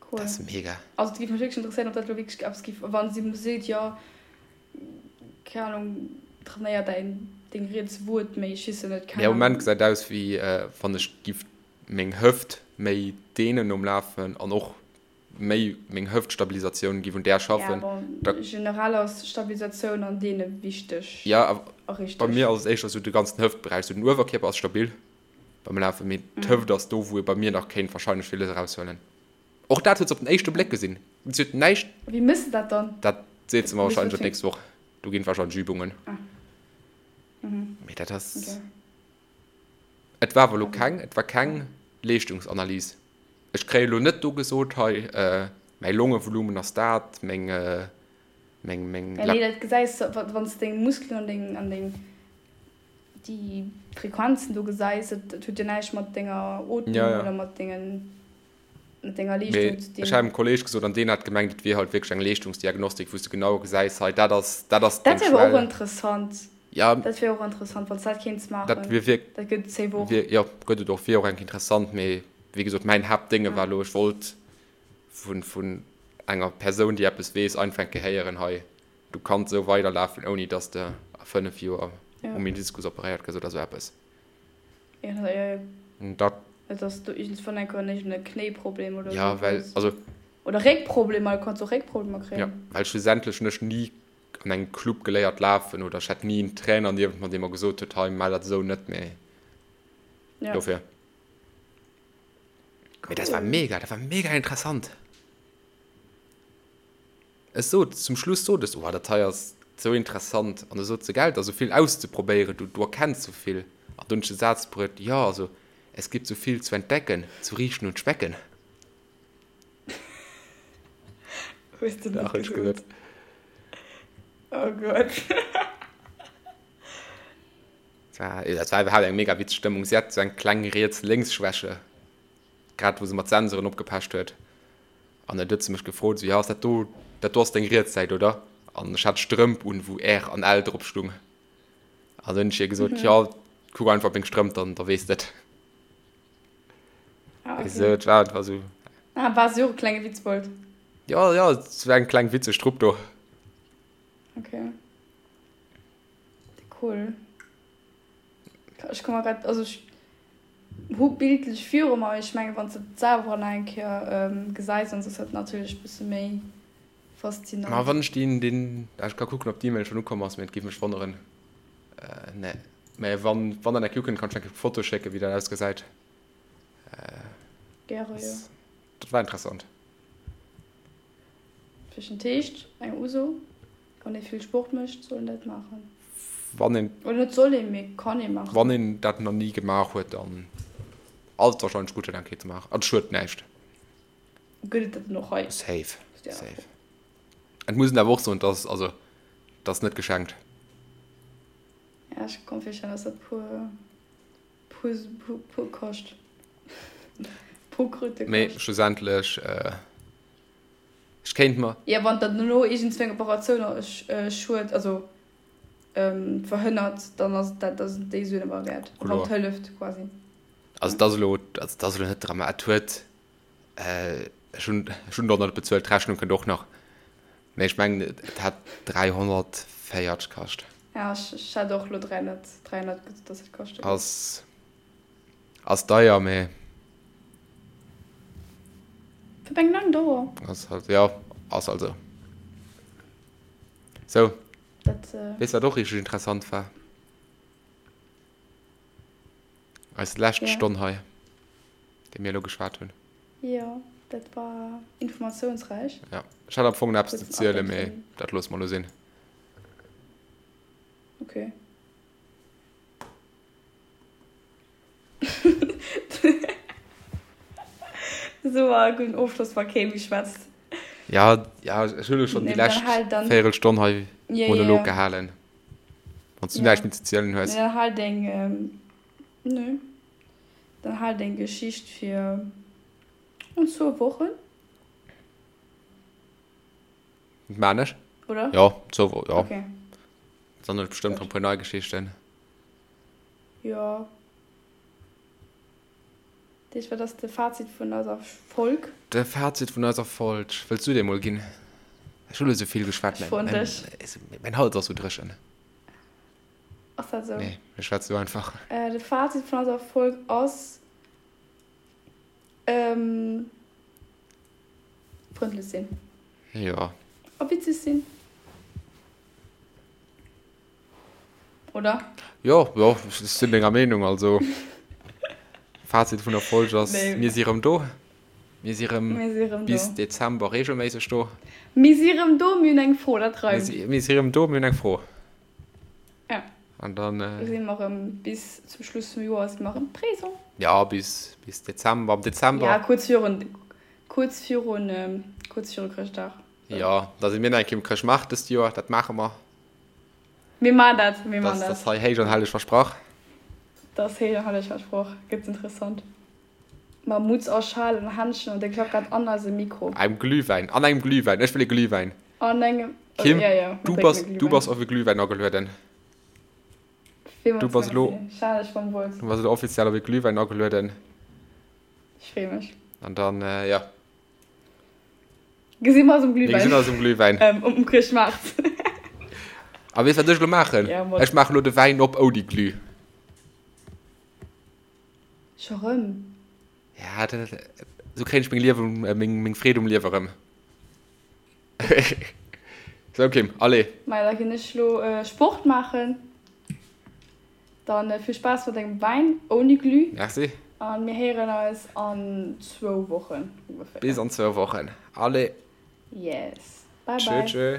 Cool. Dat ass mega. Also et géif mech wierklech interesséieren, ob dat elo wierklech eppes géif, wann si seet, jo, keng Ahnung, trainéier däin, deng riets Wued méi, ech weess jo net, keng Mee am Moment Ahnung. gesäit aus wéi wann ech giff meng Hëft méi deenen nom Lafen an och méi meng Hëftstabilisatioun giff un där Ja, schaffen. bon, Da. generell ass Stabilisatioun an Deene wichteg Ja, awer a bei richteg. mir ass et éischter sou de ganzen Hëftberäich, sou den Uewerkierper ass stabil beim Lafen, mee d'Hëft ass do wou ee bei mir nach kéint wahrscheinlech villes eraushuelen. Och dat huet se op den éischte Bléck gesinn. Si huet näischt. Wéi méchs de dat dann? Dat seet se mer Wéi wahrscheinlech och funktioniert. d'nächst Woch. Do ginn et wahrscheinlech Übungen. Ah. Mhm. Mee dat ass. Okay. Et war awer elo keng, et war keng Leeschtungsanalys. Ech kréie elo net do gesot, hei mäi Longevolumen ass dat, meng, meng, meng. Ja, nee, dat gesäis de, wann s de deng Muskelen an deng, an deng, déi Frequenzen do gesäis. Dat, dat huet jo näischt mat denger Ootmung Ja, ja. oder mat dengen, mat denger Mee Leeschtung ze ech hat dinn. engem Kolleeg gesot, an deen hat gemengt, et wier halt wierklech eng Leeschtungsdiagnostik, wou s de genau gesäis, hei dat ass, dat ass Dat deng wier awer och Schwell. interessant. Ja. Dat wier och interessant, wann s dat kéints Dat maachen. wier wierk, Dat gëtt et safe och. wier, jo, gëtt et och, wier och enk interessant. Mee wéi gesot, mäin Haaptdénge Ja. war elo, ech wollt vun, vun enger Persoun, déi eppes weess, einfach eng Kéier héieren, hei, du kanns esou weiderlafen, ouni dass de a 5 Joer Ja. um Meniskus operéiert gëss oder esou eppes. Ja, ja, ja. An dat. Et ass do iergendswann eng Kéier iergend e Knéiproblem oder Ja, esou well, hues. also. Oder Réckproblemer, du kanns och Réckproblemer Ja, kréien. well schlussendlech hunn ech ni an engem Club geléiert lafen oder ech hat ni en Trainer niewent mer, dee mer gesot huet, hei, maach dat esou net, mee Ja. dofir. Mee dat war Cool. mega, dat war mega interessant. Ech sot, zum Schluss sot ech, oh, dat hei ass sou interessant. An du sot se, gell, et ass sou vill auszeprobéieren, du, du erkenns sou vill. An du hunn ech de Saz bruet, jo, also, es gibt so viel zu entdecken, zu riechen und schmecken. Hues du net Dach, hunn ech gesot. gesot. Oh Gott. Dat war, dat war iwwerhaapt eng mega witzeg Stëmmung. Si hat sou eng kleng Riets-Lénks-Schwäche, grad wou se mat Sensoren opgepecht huet. An dann huet se mech gefrot, esou, jo, ass dat do, dat do ass deng riets Säit, oder? An ech hat Strëmp un, wou R an L drop stung. An dann hunn ech hir gesot, jo, kuck einfach op meng Strëmp, dann, da weess de et. Ah, okay. Esou, et war einfach esou. Ah, war si och e klenge Witzbold? Jo, jo, et war eng kleng witzeg Trupp do. Okay. Cool. Ech ka mer grad, also ech hu bildlech viru mer, mee ech menge wann s de et selwer nach eng Kéier gesäis, dann ass dat natierlech e bësse méi Ma faszinant. wann ech deen, deen, ech ka kucken, ob d'E-Mail schonn ukomm ass, mee et géif mech wonneren. Nee, mä wann, wann dat eng Kéier ukënnt, kann ech eng Kéier Foto schécken, wéi dat ausgesäit. Gäre, jo. Dat war interessant. Fir den Teescht eng Uso, wann ee vill Sport mécht, soll een dat maachen. Wann een. Oder net soll een, mee kann ee maachen. Wann een dat nach ni gemaach huet, dann ass et warscheinlech gutt, dat eng Kéier ze maachen. An et schued näischt. Gëtt et dat dann och hei? Safe, safe. Et muss een awer och soen, dass, also, dat ass net geschenkt. Ja, ech ka mer virstellen, dass dat puer, puer, puer, puer kascht. Puer Kröte kascht. Mee schlussendlech. Ech kéint mer. Jo, wann dat dono iergendzwou eng Operatioun schued, also verhënnert, dann ass dat, da sinn déi Suen awer wäert. Wann et hëlleft quasi. Also et ass elo, also et ass elo net drama, et huet, ech hunn, ech hunn der net bezuelt, d'Rechnung kënnt och nach, mä ech mengen et hat 340 kascht. Ja, ech hat och elo 300, 300 gesot, dass et kaschte géif. Ass. Ass deier, mee. Fir eng laang Dauer. Ass halt, jo, ass halt esou. Sou. Dat. Weess wat och richteg interessant war? Eis lescht Stonn hei, déi mir elo geschwat hunn. Jo, dat war informatiounsräich. Jo, ech hat am Fong nach eppes ze zielen, mee dat loosse mer elo sinn. Okay. Esou e gudden Ofschloss, wa kee méi schwätzt. Ja, ja, ech hunn elo schonn déi lescht Véierelstonn hei Monolog gehalen. Wann s du näischt méi ze zielen hues. Nee, dann hal deng, nö, dann hal deng Geschicht fir an zwou Wochen. Dat maan ech. Oder? Jo, zwou Wochen, jo. Okay. Dann hunn ech bestëmmt rëm e puer nei Geschichten. Jo. Dat heescht, wat ass de Fazit vun eiser Folg? De Fazit vun eiser Folg, wëlls du dee mol ginn? Ech hunn elo sou vill geschwat, Ech froen dech. Mäin Hals ass sou dréchen. Ass dat esou? Nee, ech schwätz sou einfach. De Fazit vun eiser Folg ass, frëndlech sinn. Jo. A witzeg sinn. Oder? Jo, jo, ech sinn denger Meenung. Also, Fazit vun der Folg ass, mir si rëm do. Mir si rëm bis Dezember reegelméisseg do. Mir si rëm do, mir hunn eng Fro, dat reimt. Mir si rëm do, mir hunn eng Fro. Ja. An dann. Si mer rëm bis zum Schluss vum Joer si mer rëm présent. Ja, bis, bis Dezember. Am Dezember. Ja, kuerz virun, kuerz virun, kuerz viru Chrëschtdag. Jo, da si mir nach eng Kéier um Chrëschtmaart dëst Joer, dat maache mer. Mir maan dat, mir maan dat. Dat ass hei héich an helleg versprach. Dat ass héich an helleg versproch. Gëtt interessant. Mam Mutz a Schal an Händschen an de klackert an eisem Mikro. Engem Glühwäin, an engem Glühwäin. Ech wëll e Glühwäin. An engem, Kim, ja, ja, du bass, du bass op e Glühwäin agelueden. Villmools Du bass elo, Merci. Schal ech mam Wuert. du bass elo offiziell op e Glühwäin agelueden. Ech free mech. An dann, ja. Gesi mer eis um Glühwäin. Mir gesinn eis um Glühwäin. Ähm, um Chrëschtmaart. A weess wat ech elo maachen? Ja, mat. Ech maachen elo de Wäin op ouni Glüh. Scho rëm? Ja, dat, esou kréien ech meng Liewen, meng, meng Freed um Liewe rëm. Sou Kim, allez. Maja, da ginn ech elo Sport maachen. Dann vill Spaass mat dengem Wäin ouni Glüh. Merci. An mir héieren eis an zwou Wochen ongeféier. Bis an zwou Wochen. Allez. Yes. Bye bye. Tschö tschö.